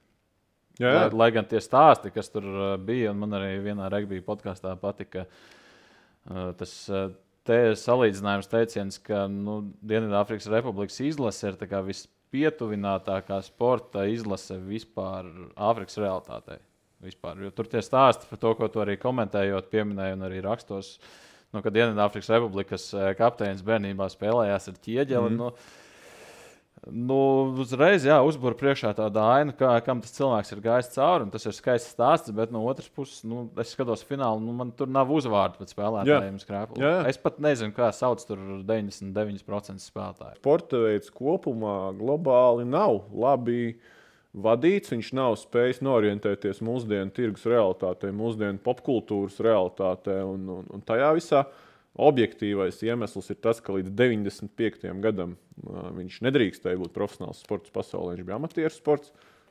Jā. Lai gan tie stāsti, kas tur bija, un man arī vienā regbija podkāstā patika tas salīdzinājums teiciens, ka Dienvidāfrikas Republikas izlase ir tā kā vispietuvinātākā sporta izlase vispār Āfrikas realitātei. Vispār. Jo tur tie stāsti par to, ko tu arī komentējot, pieminēji un arī rakstos, kad Dienvidāfrikas Republikas kapteinis bērnībā spēlējās ar ķieģeli. Uzreiz uzbūra priekšā tāda aina, kam tas cilvēks ir gājis cauri. Tas ir skaists stāsts, bet no otras puses, es skatos finālu, man tur nav uzvārdu pēc spēlētājiem. Es pat nezinu, kā sauc tur 99% spēlētāju. Sporta veids kopumā globāli nav labi vadīts. Viņš nav spējis norientēties mūsdienu tirgus realitātei, mūsdienu popkultūras realitātei un tajā visā. Objektīvais iemesls ir tas, ka līdz 95. gadam viņš nedrīkstēja būt profesionāls sports pasaulē. Viņš bija amatieru sports.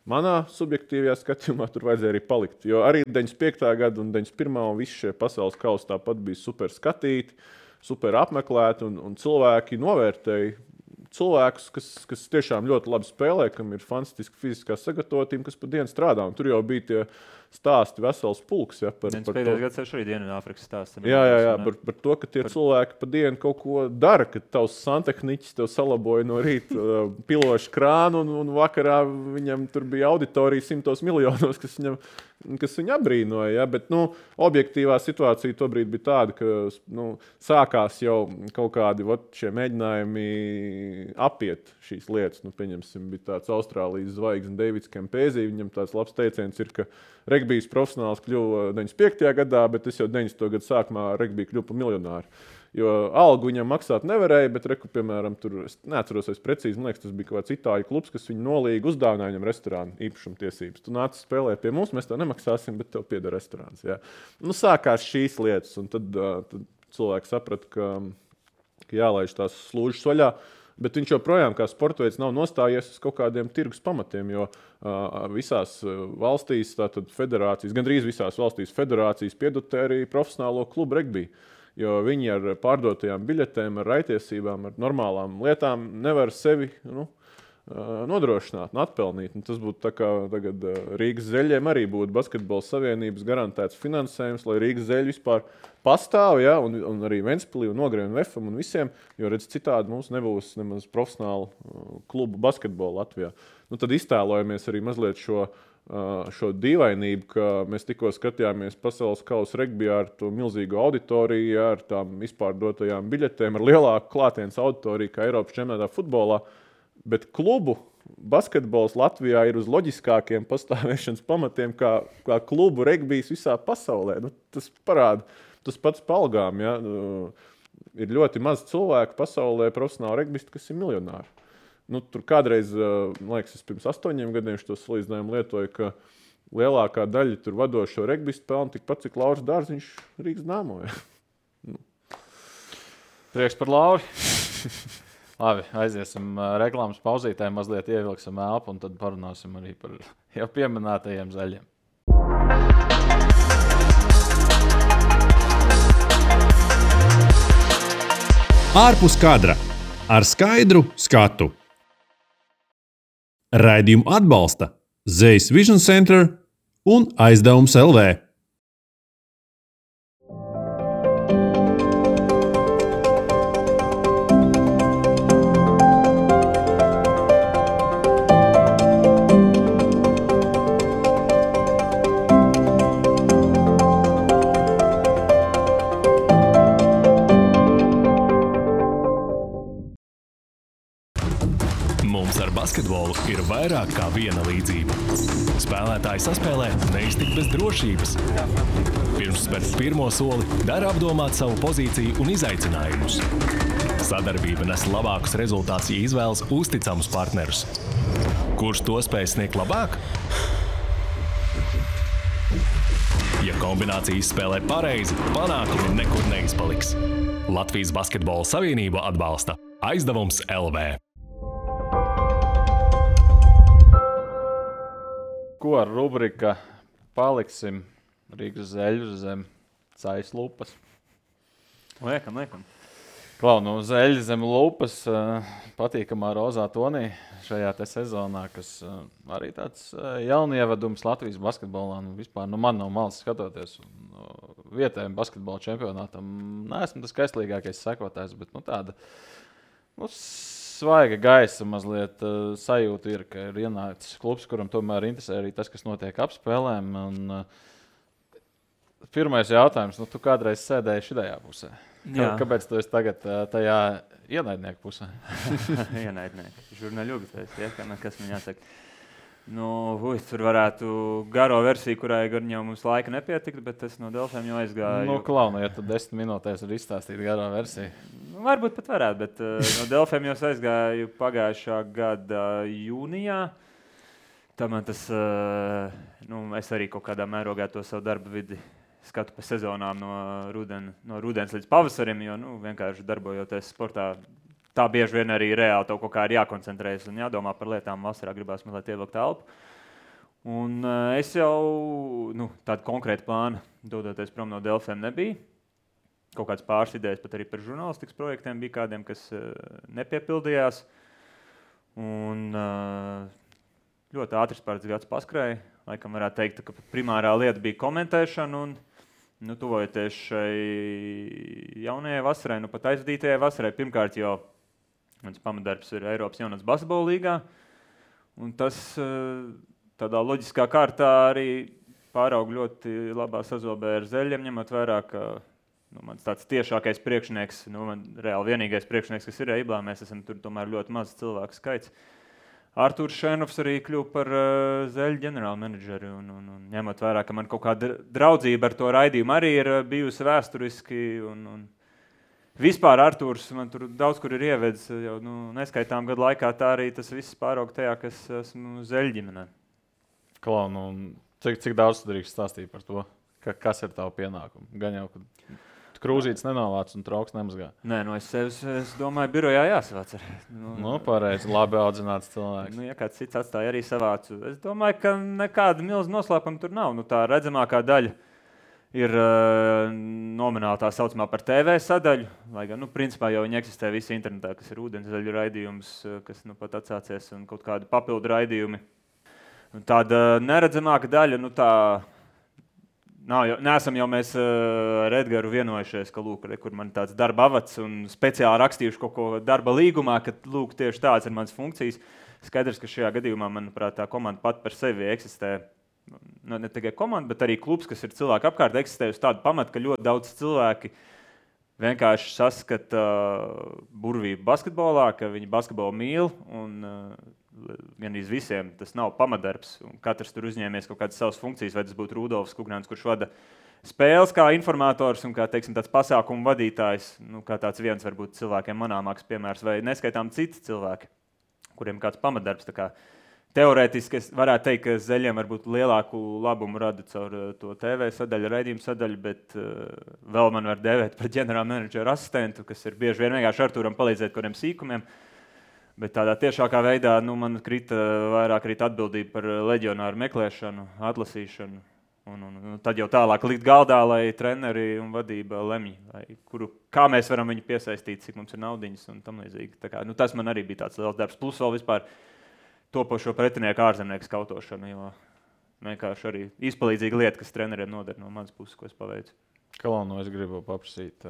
Manā subjektīvajā skatījumā tur vajadzēja arī palikt. Jo arī 95. gada un 91. un visi šie pasaules kausi tāpat bija super skatīti, super apmeklēti un cilvēki novērtēja cilvēkus, kas tiešām ļoti labi spēlē, kam ir fantastiska fiziskā sagatavotība, kas pa dienu strādā. Un tur jau bija tie stāsti vesels pulks. Ja, par to. Gads arī Dienvidāfrikas stāsts. Jā, par to, ka tie cilvēki pa dienu kaut ko dara, ka tavs santehniķis tev salaboja no rīta pilošu krānu un vakarā viņam tur bija auditorija 100 miljonos, kas viņu abrīnoja. Ja? Bet objektīvā situācija tobrīd bija tāda, ka sākās jau kaut kādi šie mēģinājumi apiet šīs lietas. Pieņemsim, bija tāds Austrālijas zvaigzne Davids Kempēzī. Viņam tāds labs teiciens ir, ka regbijs profesionāls kļuva 95. gadā, bet es jau 90. gadu sākumā regbija kļuva par miljonāru. Jo algu viņam maksāt nevarēja, bet piemēram, tur, es neatceros precīzi, man liekas, tas bija kaut kāds itāļu klubs, kas viņu nolīga, uzdāvināja viņam restorānu īpašumtiesības. Tu nāc spēlēt pie mums, mēs tev nemaksāsim, bet tev pieder restorāns. Ja. Sākās šīs lietas, un tad cilvēki saprata, ka jālaiž tās slūžas vaļā. Bet viņš joprojām kā sporta veids nav nostājies uz kaut kādiem tirgus pamatiem, jo visās valstīs, tātad federācijas, gandrīz visās valstīs federācijas piedotē arī profesionālo klubu regbiju. Jo viņi ar pārdotajām biļetēm, ar raitiesībām, ar normālām lietām nevar sevi nodrošināt un atpelnīt. Un tas būtu tā kā tagad Rīgas zeļiem arī būtu Basketbola savienības garantēts finansējums, lai Rīgas zeļi vispār pastāv, ja, un arī Ventspilī un Ogrē un Vefam un visiem, jo redz citādi mums nebūs nemaz profesionālu klubu basketbolu Latvijā. Tad iztēlojamies arī mazliet šo dīvainību, ka mēs tikko skatījāmies pasaules kausa regbijā ar to milzīgu auditoriju, ar tām izpārdotajām biļetēm, ar lielāku klātienes auditoriju kā Eiropas čempionātā futbolā. Bet klubu basketbols Latvijā ir uz loģiskākiem pastāvēšanas pamatiem kā klubu regbijs visā pasaulē. Tas parāda, tas pats pa algām. Ja? Ir ļoti maz cilvēku pasaulē profesionāli regbisti, kas ir miljonāri. Tur kādreiz, man liekas, es pirms 8 gadiem šo salīdzinājumu lietoju, ka lielākā daļa tur vadošo regbistu pelna tikpat, cik Lauris Dārziņš Rīgas Dāmo. Ja? Prieks par Lauri. Labi, aiziesim reklāmas pauzītē, mazliet ievilksim elpu un tad parunāsim arī par jau pieminētajiem zaļiem. Ārpus kadra ar skaidru skatu. Raidījumu atbalsta Zeiss Vision Center un Aizdevums LV. Mums ar basketbolu ir vairāk kā viena līdzība. Spēlētāji saspēlē neiztikt bez drošības. Pirms spērt pirmo soli, dara apdomāt savu pozīciju un izaicinājumus. Sadarbība nes labākus rezultātus, ja izvēlas uzticamus partnerus. Kurš to spēj sniegt labāk? Ja kombinācijas spēlē pareizi, panākumi nekur neizpaliks. Latvijas Basketbola Savienība atbalsta Aizdevums LV. Ko ar rubrika paliksim Rīgas zeļu zem Zeiss lupas? Liekam. Klau, nu zeļi zem lupas patīkamā rozā tonī šajā te sezonā, kas arī tāds jaunievedums Latvijas basketbolā. Nu, vispār man no malas skatoties vietējiem basketbola čempionātam. Neesmu tas skaistlīgākais sekotājs, bet tāda svaiga gaisa mazliet sajūta ir, ka ir ienācis klubs, kuram tomēr interesē arī tas, kas notiek ap spēlēm. Un, pirmais jautājums, tu kādreiz sēdēji šajā pusē. Kāpēc tu esi tagad tajā ienaidnieku pusē? Ienaidnieki. Žurnāļugi, kas man jāsaka. Tur varētu garo versiju, kurai gan jau mums laika nepietikt, bet es no Delfiem jau aizgāju. Ja tu 10 minūtēs var izstāstīt garo versiju. Varbūt pat varētu, bet no Delfiem jau aizgāju pagājušā gada jūnijā. Tā man tas, es arī kaut kādā mērogā to savu darba vidi skatu pa sezonām no rudens līdz pavasarim, jo vienkārši darbojoties sportā, tā bieži vien arī reāli tev kaut kā ir jākoncentrējas un jādomā par lietām. Vasarā gribās mazliet ievilkt elpu. Un es jau tādu konkrētu plānu dodoties prom no Delfiem nebija. Kaut kāds pāris idejas pat arī par žurnālistikas projektiem bija kādiem, kas nepiepildījās. Un ļoti ātrs pāris gads paskrēja. Laikam varētu teikt, ka primārā lieta bija komentēšana un tuvojoties šai jaunajai vasarai, pat aizvadītajai vasarai. Pirmkārt jau mans pamatdarbs ir Eiropas jaunatnes basketbola līgā. Un tas tādā loģiskā kārtā arī pāraug ļoti labā sazobē ar zeļiem, ņemot vērā, ka mans tāds tiešākais priekšnieks, man reāli vienīgais priekšnieks, kas ir Eiblā, mēs esam tur tomēr ļoti maz cilvēku skaits. Artūrs Šēnovs arī kļuva par zeļu ģenerālu menedžeri un ņemot vērā, ka man kaut kāda draudzība ar to raidījumu arī ir bijusi vēsturiski un vispār Artūrs man tur daudz kur ir ievedis jau neskaitām gadu laikā, tā arī tas viss pāraug tajā, kas esmu zeļu ģimenē. Klau, cik daudz tu drīkst stāstīt par to, kas ir tavu pienākumu? Gan jau, ka krūzītes nenovāc un trauks nemazgā. Nē, es domāju, birojā jāsavāc. Pareizi, labi audzināts cilvēks. Ja kāds cits atstāja arī savācu. Es domāju, ka nekāda milza noslēpuma tur nav. Tā redzamākā daļa ir nomināli tā saucamā par TV sadaļu, lai gan, principā jau viņi eksistē visi internetā, kas ir ūdenszaļu raidījums, kas pat atsācies un kaut kādi papildu raidījumi. Un tāda neredzamāka daļa, neesam jau mēs ar Edgaru vienojušies, ka kur man tāds darba avats un speciāli rakstījuši kaut ko darba līgumā, ka tieši tāds ir mans funkcijas. Skaidrs, ka šajā gadījumā, manuprāt, tā komanda pat par sevi eksistē. Ne tikai komanda, bet arī klubs, kas ir cilvēku apkārt, eksistē uz tādu pamatu, ka ļoti daudz cilvēki vienkārši saskata burvību basketbolā, ka viņi basketbolu mīl un gandrīz visiem tas nav pamatdarbs. Katrs tur uzņēmies kaut kādas savas funkcijas, vai tas būtu Rudolfs Kugnāns, kurš vada spēles kā informators un kā, tāds pasākumu vadītājs, kā tāds viens varbūt cilvēkiem manāmāks piemērs, vai neskaitām citi cilvēki, kuriem kāds pamatdarbs. Tā kā teorētiski es varētu teikt, ka Zeļiem varbūt lielāku labumu rada caur to TV sadaļu, raidījumu sadaļu, bet vēl man var dēvēt par ģenerāla menedžera asistentu, kas ir bieži vien vienkārši Artūram palīdzēt kādiem sīkumiem. Bet tādā tiešākā veidā man vairāk atbildība par leģionāru meklēšanu, atlasīšanu. Un tad jau tālāk likt galdā, lai treneri un vadība lemj, kā mēs varam viņu piesaistīt, cik mums ir naudiņas un tam līdzīgi. Tā kā, tas man arī bija tāds liels darbs. Plus vēl vispār topošo pretinieku ārzemnieku skautošanu, jo vienkārši arī izpalīdzīga lieta, kas treneriem noder no manas puses, ko es paveicu. Kalonu, es gribu paprasīt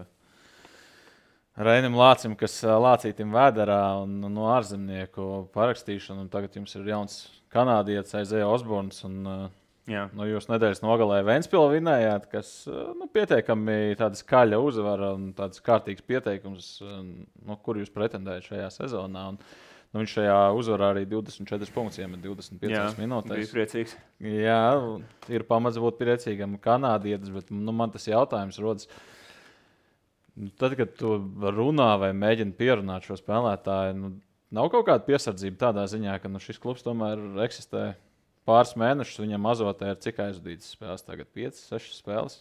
Reinim Lācim, kas Lācītim Vēderā un no ārzemnieku parakstīšanu, un tagad jums ir jauns kanādietis Isaiah Osborns, un jūs nedēļas nogalē Ventspili vinējāt, kas pietiekami tāda skaļa uzvara un tāds kārtīgs pieteikums, kur jūs pretendējat šajā sezonā. Un, viņš šajā uzvarā arī 24 punktus iemet 25 minūtēs. Bija priecīgs. Jā, ir pamats būt priecīgam kanādietis, bet man tas jautājums rodas. Tad, kad tu runā vai mēģini pierunāt šo spēlētāju, nav kaut kāda piesardzība tādā ziņā, ka šis klubs tomēr eksistē pāris mēnešus, viņam azotē ir cik aizvadītas spēles tagad? 5, 6 spēles?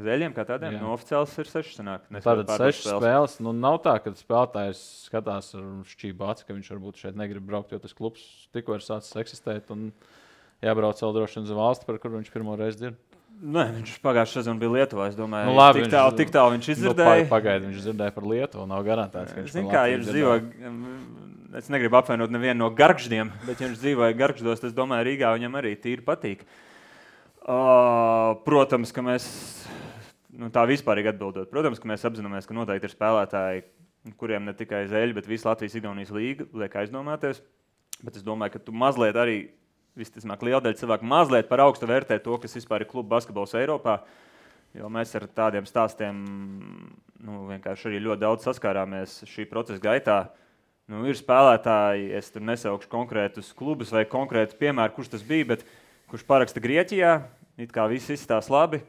Zeļiem kā tādiem? No oficiāls ir 6 sanāk. Tātad 6 spēles. Nav tā, ka spēlētājs skatās ar šķību aci, ka viņš varbūt šeit negrib braukt, jo tas klubs tikko ir sācis eksistēt un jābrauc vēl droši vien uz valsti, par kur viņš pirmo reizi dzird. Nē, viņš pagājušā sezona bija Lietuvā, es domāju. Labi, tik tālu viņš izdzirdēja. Pagaidi, viņš dzirdēja par Lietuvu, nav garantēts, ka viņš Zin kā, ja viņš dzīvo, es negribu apvainot nevienu no Gargždiem, bet ja viņš dzīvoja Gargždos, es domāju, Rīgā viņam arī tīri patīk. Protams, ka mēs, tā vispārīgi atbildot, protams, ka mēs apzināmies, ka noteikti ir spēlētāji, kuriem ne tikai Zeļi, bet visa Latvijas-Igaunijas līga liek aizdomāties, bet es domāju, ka tu mazliet arī visticamāk liela daļa cilvēku mazliet par augstu vērtē to, kas vispār ir klubu basketbols Eiropā, jo mēs ar tādiem stāstiem vienkārši arī ļoti daudz saskārāmies šī procesa gaitā. Ir spēlētāji, es tur nesaukšu konkrētus klubus vai konkrētu piemēru, kurš tas bija, bet kurš paraksta Grieķijā, it kā viss izstās labi,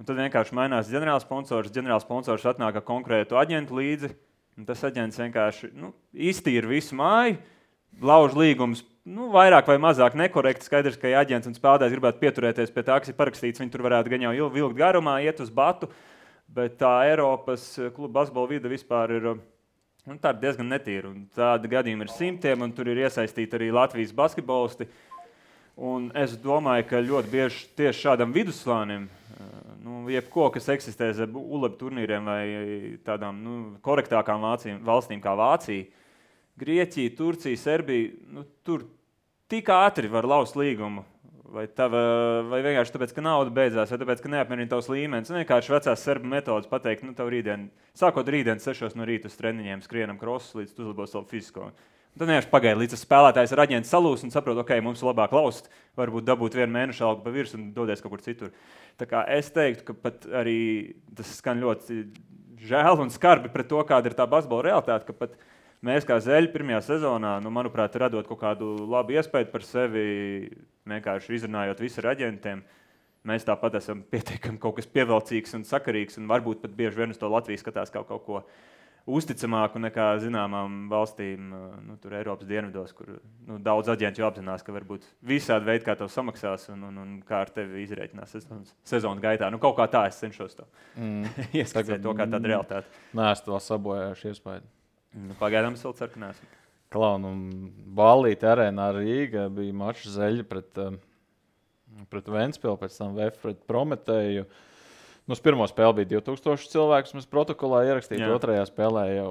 un tad vienkārši mainās ģenerālsponsors atnāk ar konkrētu aģentu līdzi, un tas aģents vienkārši iztīra visu māju, lauž līgumus, vairāk vai mazāk nekorekti, skaidrs, ka ja aģents un spēlētājs gribētu pieturēties pie tā, kas ir parakstīts, viņi tur varētu gan jau vilkt garumā, iet uz batu, bet tā Eiropas kluba basketbola vide vispār ir tā diezgan netīra. Tādi gadījumi ir simtiem, un tur ir iesaistīti arī Latvijas basketbolisti. Un es domāju, ka ļoti bieži tieši šādam vidusslānim, jebko, kas eksistē zem ULEB turnīriem vai tādām korektākām valstīm kā Vācija, Grieķija, Turcija, Serbija, tur tik ātri var laust līgumu, vai vienkārši tāpēc, ka nauda beidzās, vai tāpēc, ka neapmierina tavs līmenis. Vienkārši vecās serbu metodas pateikt, tev sākot rītdien 6 no rīta uz treniņiem skrienam krosus, līdz tu uzlabos savu fizisko. Un tad vienkārši pagaida, līdz tas spēlētājs ar aģentu salūs un saprot, ok, mums labāk laust, varbūt dabūt 1 mēnešu algu pa virs un dodies kaut kur citur. Tā kā es teiktu, ka pat arī tas skan ļoti žēl un skarbi pret to, kāda ir tā basketbola realitāte, ka pat mēs kā Zeļi pirmajā sezonā, manuprāt, radot kaut kādu labu iespēju par sevi, vienkārši izrunājot visu ar aģentiem, mēs tāpat esam pietiekami kaut kas pievilcīgs un sakarīgs, un varbūt pat bieži vien uz to Latviju skatās kaut ko uzticamāku nekā zināmām valstīm, tur Eiropas dienvidos, kur daudz aģentu jau apzinās, ka varbūt visādi veidi, kā tev samaksās un kā ar tevi izrēķinās sezonu gaitā. Kaut kā tā es cenšos to ieskatīt to kā tādu realitāti. Nē, es to sabojājuši iespēju. Pagaidām es vēl ceru, ka neesmu. Klaunu, Ballīte arēnā Rīga bija mačs Zeļi pret Ventspili, pēc tam VF pret Prometēju. Uz pirmo spēli bija 2000 cilvēku, mēs protokolā ierakstījām, otrajā spēlē jau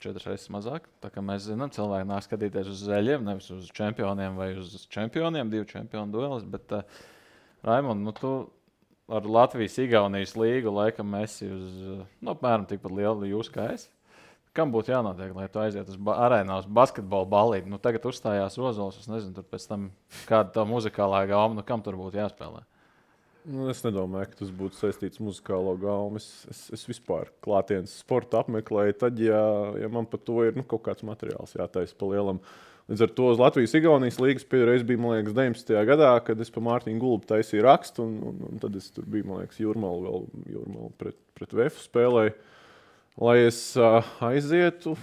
4 reizes mazāk. Tā kā mēs zinām, cilvēki nāk skatīties uz Zeļiem, nevis uz čempioniem vai uz čempioniem, 2 čempionu duelis, bet Raimond, tu ar Latvijas-Igaunijas līgu laikam esi uz apmēram tikpat lielu jūs kā es. Kam būtu jānotiek, lai tu aiziet uz arēnā uz basketbola ballīti? Tagad uzstājās Ozols, es nezinu, tur pēc tam kāda tā muzikālā gauma, kam tur būtu jāspēlē? Es nedomāju, ka tas būtu saistīts muzikālo gaumu. Es vispār klātienes sportu apmeklēju, tad, ja man par to ir kaut kāds materiāls jātaisa pa lielam. Līdz ar to uz Latvijas-Igaunijas līgas pēdējais bija, man liekas, 19. gadā, kad es pa Mārtiņu Gulbu taisīju rakstu, un tad es tur biju, man liekas, Jūrmalu pret VF spēlēju. Lai es aizietu,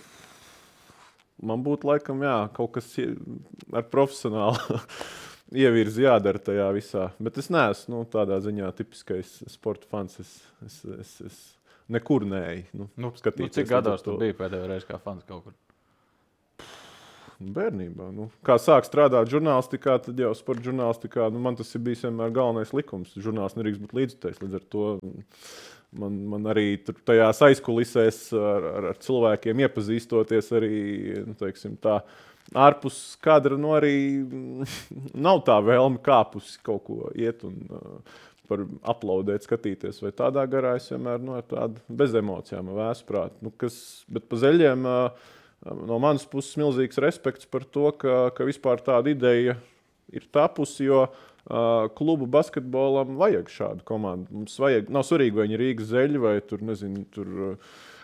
man būtu laikam, kaut kas ar profesionālu ievirzi jādara tajā visā. Bet es neesmu tādā ziņā tipiskais sporta fans. Es nekur neeju. Skatīties. Cik gados tu biji pēdējo reizi kā fans kaut kur? Bērnībā. Kā sāk strādāt žurnālistikā, tad jau sporta žurnālistikā, man tas ir bijis vienmēr galvenais likums. Žurnālists nedrīkst būt līdzjutējs. Līdz ar to man arī tajās aizkulisēs ar cilvēkiem iepazīstoties arī, teiksim tā, ārpus kadra, arī nav tā vēlme kāpusi kaut ko iet un par aplaudēt, skatīties. Vai tādā garā es vienmēr ar tādu bez emocijām vēsprāt. Bet pa zeļiem no manas puses milzīgs respekts par to, ka vispār tāda ideja ir tapusi, jo klubu basketbolam vajag šādu komandu. Mums vajag, nav svarīgi, vai viņi ir Rīgas zeļi, vai tur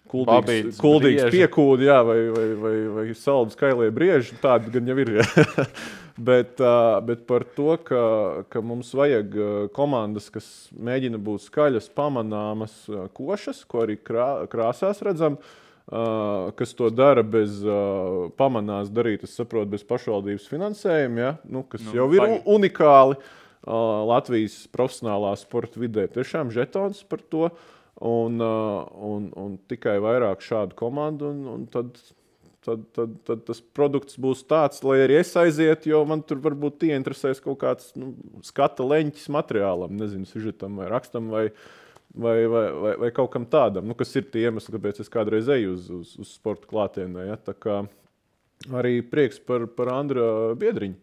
kuldīgs piekūdi, vai saldu skailie brieži, tādi gan jau ir. bet par to, ka mums vajag komandas, kas mēģina būt skaļas, pamanāmas, košas, ko arī krāsās redzam, kas to dara bez pamanās darīt, es saprotu, bez pašvaldības finansējuma, kas jau ir unikāli Latvijas profesionālā sporta vidē. Tiešām žetons par to un tikai vairāk šādu komandu, un tad tas produkts būs tāds, lai arī es aizietu, jo man tur varbūt ieinteresēs kaut kāds skata leņķis materiālam, nezinu, sižetam vai rakstam vai kaut kam tādam, kas ir tie iemesli, kāpēc es kādreiz eju uz sporta klātienē. Ja? Tā kā arī prieks par Andra Biedriņu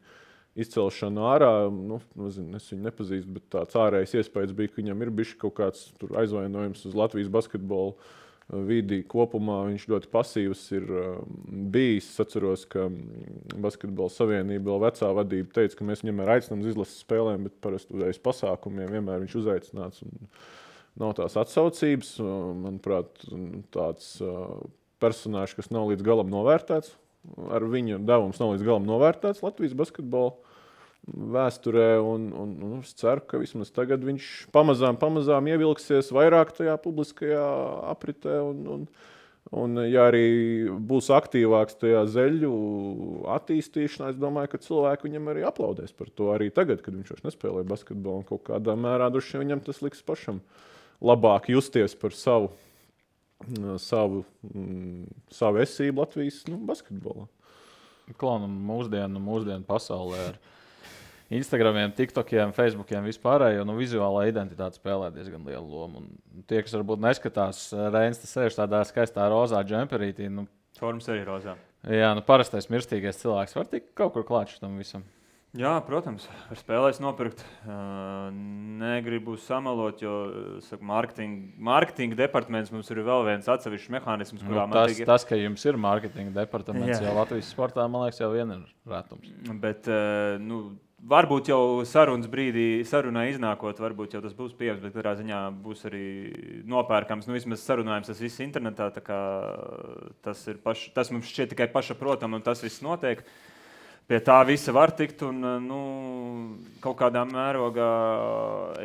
izcelšanu ārā. Nezinu, es viņu nepazīstu, bet tāds ārējais iespējas bija, ka viņam ir bišķi kaut kāds aizvainojums uz Latvijas basketbolu vidi kopumā. Viņš ļoti pasīvs ir bijis. Es atceros, ka Basketbola savienība vēl vecā vadība teica, ka mēs viņam aicinām uz izlases spēlēm, bet parasti uz pasākumiem vienmēr viņš uzaicināts. Nav tās atsaucības. Manuprāt, tāds personāžs, kas nav līdz galam novērtēts. Ar viņu devums nav līdz galam novērtēts Latvijas basketbola vēsturē. Un es ceru, ka vismaz tagad viņš pamazām ievilksies vairāk tajā publiskajā apritē. Un ja arī būs aktīvāks tajā zeļu attīstīšanā, es domāju, ka cilvēki viņam arī aplaudēs par to. Arī tagad, kad viņš vairs nespēlē basketbolu, un kaut kādā mērā droši vien viņam tas liks pašam labāk justies par savu esību Latvijas basketbolā. Klaunam mūsdienu pasaulē ar Instagramiem, TikTokiem, Facebookiem vispārējo, vizuālā identitāte spēlē diezgan lielu lomu. Un tie, kas varbūt neskatās, Reins sēž tādā skaistā rozā džemperītī. Formas arī rozā. Jā, parastais mirstīgais cilvēks var tikt kaut kur klāt šitam visam. Jā, protams, ar spēlēs nopirkt. Negribu samalot, jo mārketinga departaments mums ir vēl viens atsevišķs mehānisms, kurā tas, ka jums ir mārketinga departaments, jau Latvijas sportā, man liekas, jau vien ir rētums. Bet, varbūt jau sarunā iznākot, varbūt jau tas būs pieejams, bet katrā ziņā būs arī nopērkams. Vismaz sarunājums tas viss internetā, tā kā tas mums šķiet tikai pašaprotam, un tas viss notiek. Pie tā visa var tikt, un kaut kādā mērogā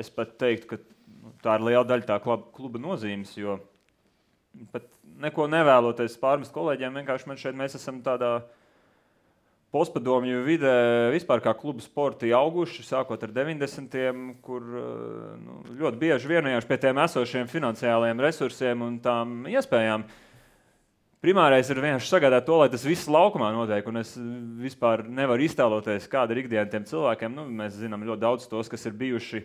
es pat teiktu, ka tā ir liela daļa tā kluba nozīmes, jo pat neko nevēloties pārmest kolēģiem, vienkārši mēs esam tādā postpadomju vidē vispār kā kluba sporti auguši, sākot ar 90-tiem, kur ļoti bieži vienojāši pie tiem esošiem finansiālajiem resursiem un tām iespējām. Primārais ir vienkārši sagādāt to, lai tas viss laukumā notiek, un es vispār nevaru iztēloties, kāda ir ikdiena tiem cilvēkiem. Mēs zinām ļoti daudz tos, kas ir bijuši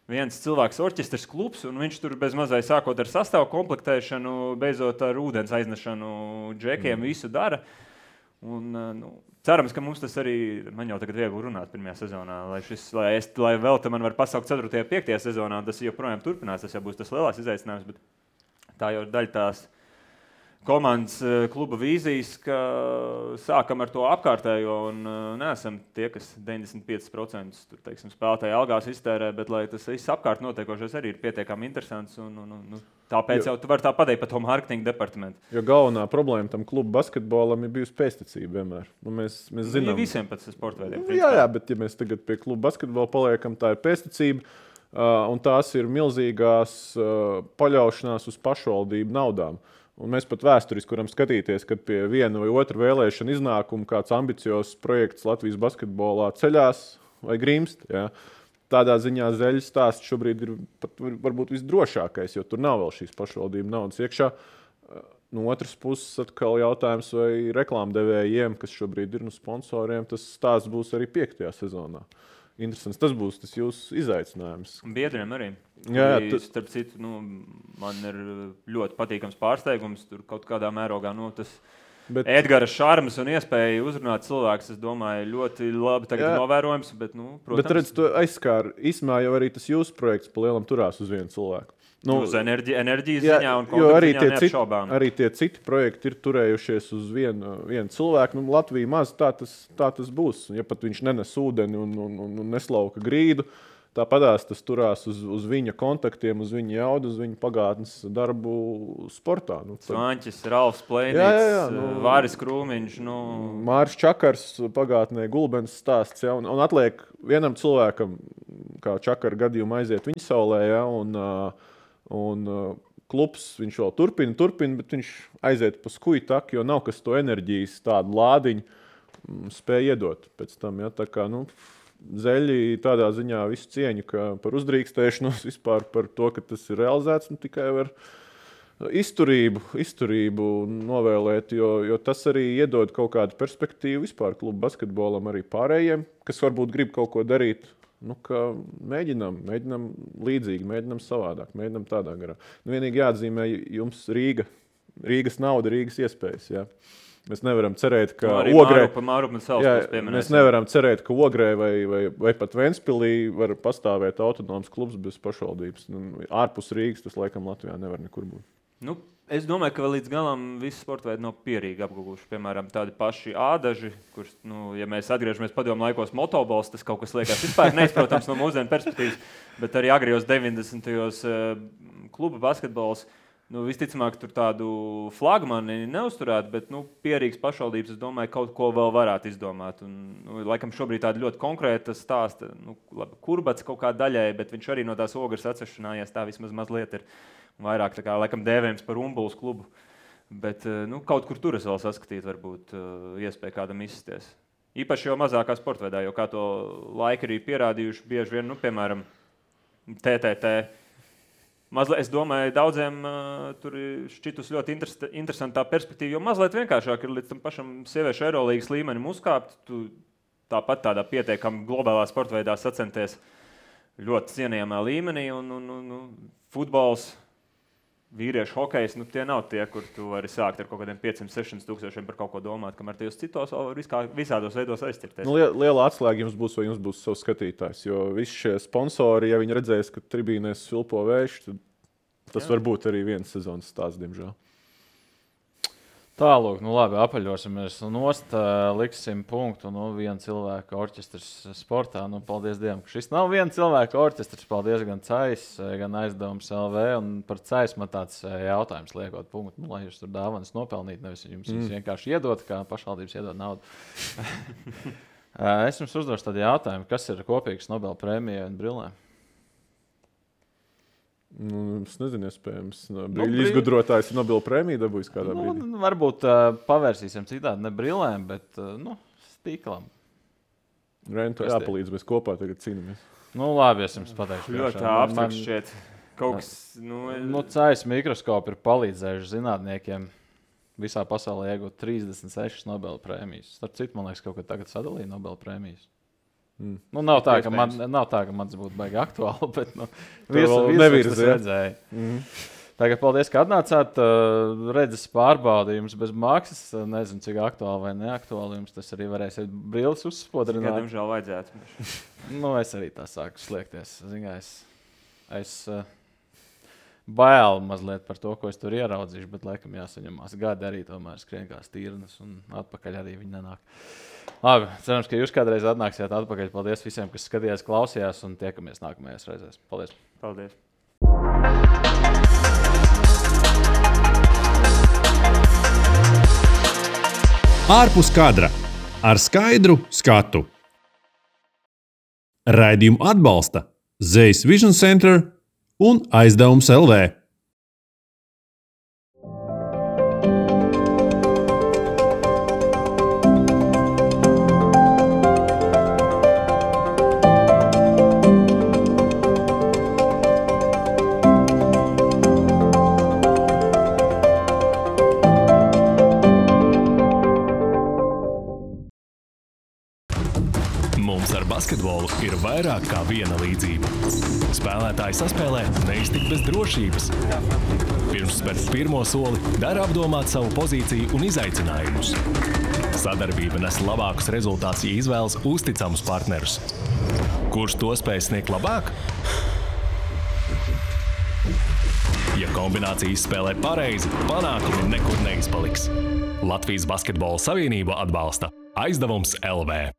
viens cilvēks orķestris klubs, un viņš tur bez mazai sākot ar sastāvu komplektēšanu, beidzot ar ūdens aiznešanu džekiem visu dara. Un, cerams, ka mums tas arī, man jau tagad viegli runāt pirmajā sezonā, lai vēl te man var pasaukt 4. un 5. sezonā, tas joprojām turpinās, tas jau būs tas lielās izaicinājums, bet tā jau ir daļa tās komandas kluba vīzijas, ka sākam ar to apkārtējo un neesam tie, kas 95% tur, teiksim, spēlētāji algās iztērē, bet lai tas viss apkārt notiekošais arī ir pietiekami interesants un tāpēc jau tu vari tā pateikt par to mārketinga departamentu. Jo galvenā problēma tam kluba basketbolam ir bijusi pēctecība vienmēr. Mēs zinām. Visiem pēc sporta veidiem. Jā, bet ja mēs tagad pie kluba basketbola paliekam, tā ir pēctecība. Un tās ir milzīgās paļaušanās uz pašvaldību naudām. Un mēs pat vēsturiski varam skatīties, kad pie viena vai otra vēlēšana iznākuma kāds ambiciozs projekts Latvijas basketbolā ceļās vai grimst. Ja? Tādā ziņā Zeļas stāsts šobrīd ir pat varbūt visdrošākais, jo tur nav vēl šīs pašvaldību naudas iekšā. No otras puses, atkal jautājums, vai reklāmdevējiem, kas šobrīd ir sponsoriem, tas stāsts būs arī 5. sezonā. Interesants. Tas būs tas jūsu izaicinājums. Biedriem arī. Jā, Starp citu, man ir ļoti patīkams pārsteigums. Tur kaut kādā mērogā Edgara šarmas un iespēja uzrunāt cilvēkus, es domāju, ļoti labi tagad novērojams. Bet, protams, bet redz, to aizskāra. Īsmā jau arī tas jūsu projekts pa lielam turās uz vienu cilvēku. Uz enerģijas ziņā un kontaktu ziņā neapšaubām. Arī tie citi projekti ir turējušies uz vienu cilvēku. Latvija maz tā tas būs. Ja pat viņš nenes ūdeni un neslauka grīdu, tāpatās tas turās uz viņa kontaktiem, uz viņa jaudu, uz viņa pagātnes darbu sportā. Svanķis, Ralfs Plēnīts, Vāris Krūmiņš. Māris Čakars pagātnē Gulbens stāsts. Ja, un atliek vienam cilvēkam, kā Čakara gadījumā aiziet viņa saulē, ja, un klubs viņš vēl turpina, bet viņš aiziet pa skuju taku, jo nav kas to enerģijas tādu lādiņu spēja iedot pēc tam. Ja? Tā kā, Zeļi tādā ziņā visu cieņu par uzdrīkstēšanos, vispār par to, ka tas ir realizēts, tikai var izturību novēlēt, jo tas arī iedod kaut kādu perspektīvu vispār klubu basketbolam arī pārējiem, kas varbūt grib kaut ko darīt. Mēģinām līdzīgi, mēģinām savādāk, mēģinām tādā garā. Vienīgi jāatzīmē jums Rīgas nauda, Rīgas iespējas. Ja? Mēs nevaram cerēt, ka Ogrē vai pat Ventspilī var pastāvēt autonoms klubs bez pašvaldības. Ārpus Rīgas tas laikam Latvijā nevar nekur būt. Es domāju, ka vēl līdz galam visi sporta veidi nav pierīgi apguvuši. Piemēram, tādi paši ādaži, kurš, ja mēs atgriežamies padomu laikos motobols, tas kaut kas liekas vispār neizprotams no mūsdienu perspektīvas, bet arī agrijos 90. kluba basketbols, visticamāk tur tādu flagmani neuzturētu, bet pierīgas pašvaldības, es domāju, kaut ko vēl varētu izdomāt. Un, laikam šobrīd tāda ļoti konkrēta stāsta, Kurbats kaut kā daļai, bet viņš arī no tās Ogres atsešanājās, tā vismaz mazliet ir. Vairāk tā kā laikam dēvējums par Umbuls klubu, bet kaut kur tur es vēl saskatītu varbūt iespēju kādam izsties. Īpaši jau mazākā sporta veidā, jo kā to laika arī pierādījuši bieži vien, piemēram, TTT. Mazliet, es domāju, daudziem tur šķitus ļoti interesantā perspektīva, jo mazliet vienkāršāk ir līdz tam pašam sieviešu Eirolīgas līmenim uzkāpt. Tu tāpat tādā pietiekami globālā sporta veidā sacenties ļoti cienījamā līmenī un futbols, vīriešu hokejs, tie nav tie, kur tu vari sākt ar kaut kādiem 500-600 tūkstošiem par kaut ko domāt, kamēr tajos citos visādos veidos aizķirties. Liela atslēga jums būs, vai jums būs savs skatītājs, jo visi šie sponsori, ja viņi redzēs, ka tribīnēs svilpo vējš, tad tas var būt arī viens sezonas stāsts, diemžēl. Tālūk, labi, apaļosimies nost, liksim punktu, viena cilvēka orķestrs sportā. Paldies Dievam, ka šis nav viena cilvēka orķestrs. Paldies gan CAIS, gan Aizdevums LV. Un par CAIS man tāds jautājums liekot punktu, lai jūs tur dāvanas nopelnīt, nevis jums vienkārši iedot, kā pašvaldības iedod naudu. Es jums uzdošu tādu jautājumu, kas ir kopīgs Nobel prēmijai un brillēm? Es nezinu, iespējams. Brīļu izgudrotājs ir Nobela prēmiju dabūjis kādā brīdī. Varbūt pavērsīsim citādi, ne brillēm, bet stīklam. Rentu jāpalīdz, mēs kopā tagad cīnāmies. Labi, es jums pateikšu. Ļoti abstrakt šķiet. Kaut kas, CAIS mikroskopi ir palīdzējuši zinātniekiem visā pasaulē iegūt 36 Nobela prēmijas. Starp citu, man liekas, kaut kad tagad sadalīja Nobela prēmijas. Nav tā, ka mans būtu baigi aktuāli, bet visus tas redzēja. Tagad paldies, ka atnācāt. Redzes pārbaudījums bez maksas. Nezinu, cik aktuāli vai neaktuāli jums tas arī varēsiet brilles uzspodrināt. Diemžēl vajadzētu. Es arī tā sāku sliekties. Es bail mazliet par to, ko es tur ieraudzīšu, bet laikam jāsaņemās. Gadi arī tomēr skrien kā stīrnas un atpakaļ arī viņi nenāk. Labi, cerams, ka jūs kādreiz atnāksiet atpakaļ. Paldies visiem, kas skatījās, klausījās un tiekamies nākamajās reizēs. Paldies! Paldies! Ārpus kadra ar skaidru skatu. Raidījumu atbalsta Zeļas Vision Center un Aizdevums LV. Mums ar basketbolu ir vairāk kā viena līdzība. Spēlētāji saspēlē neiztikt bez drošības. Pirms spērt pirmo soli, dara apdomāt savu pozīciju un izaicinājumus. Sadarbība nes labākus rezultātus, ja izvēlas uzticamus partnerus. Kurš to spēj sniegt labāk? Ja kombinācija izspēlē pareizi, panākumi nekur neizpaliks. Latvijas Basketbola Savienība atbalsta Aizdevums LV.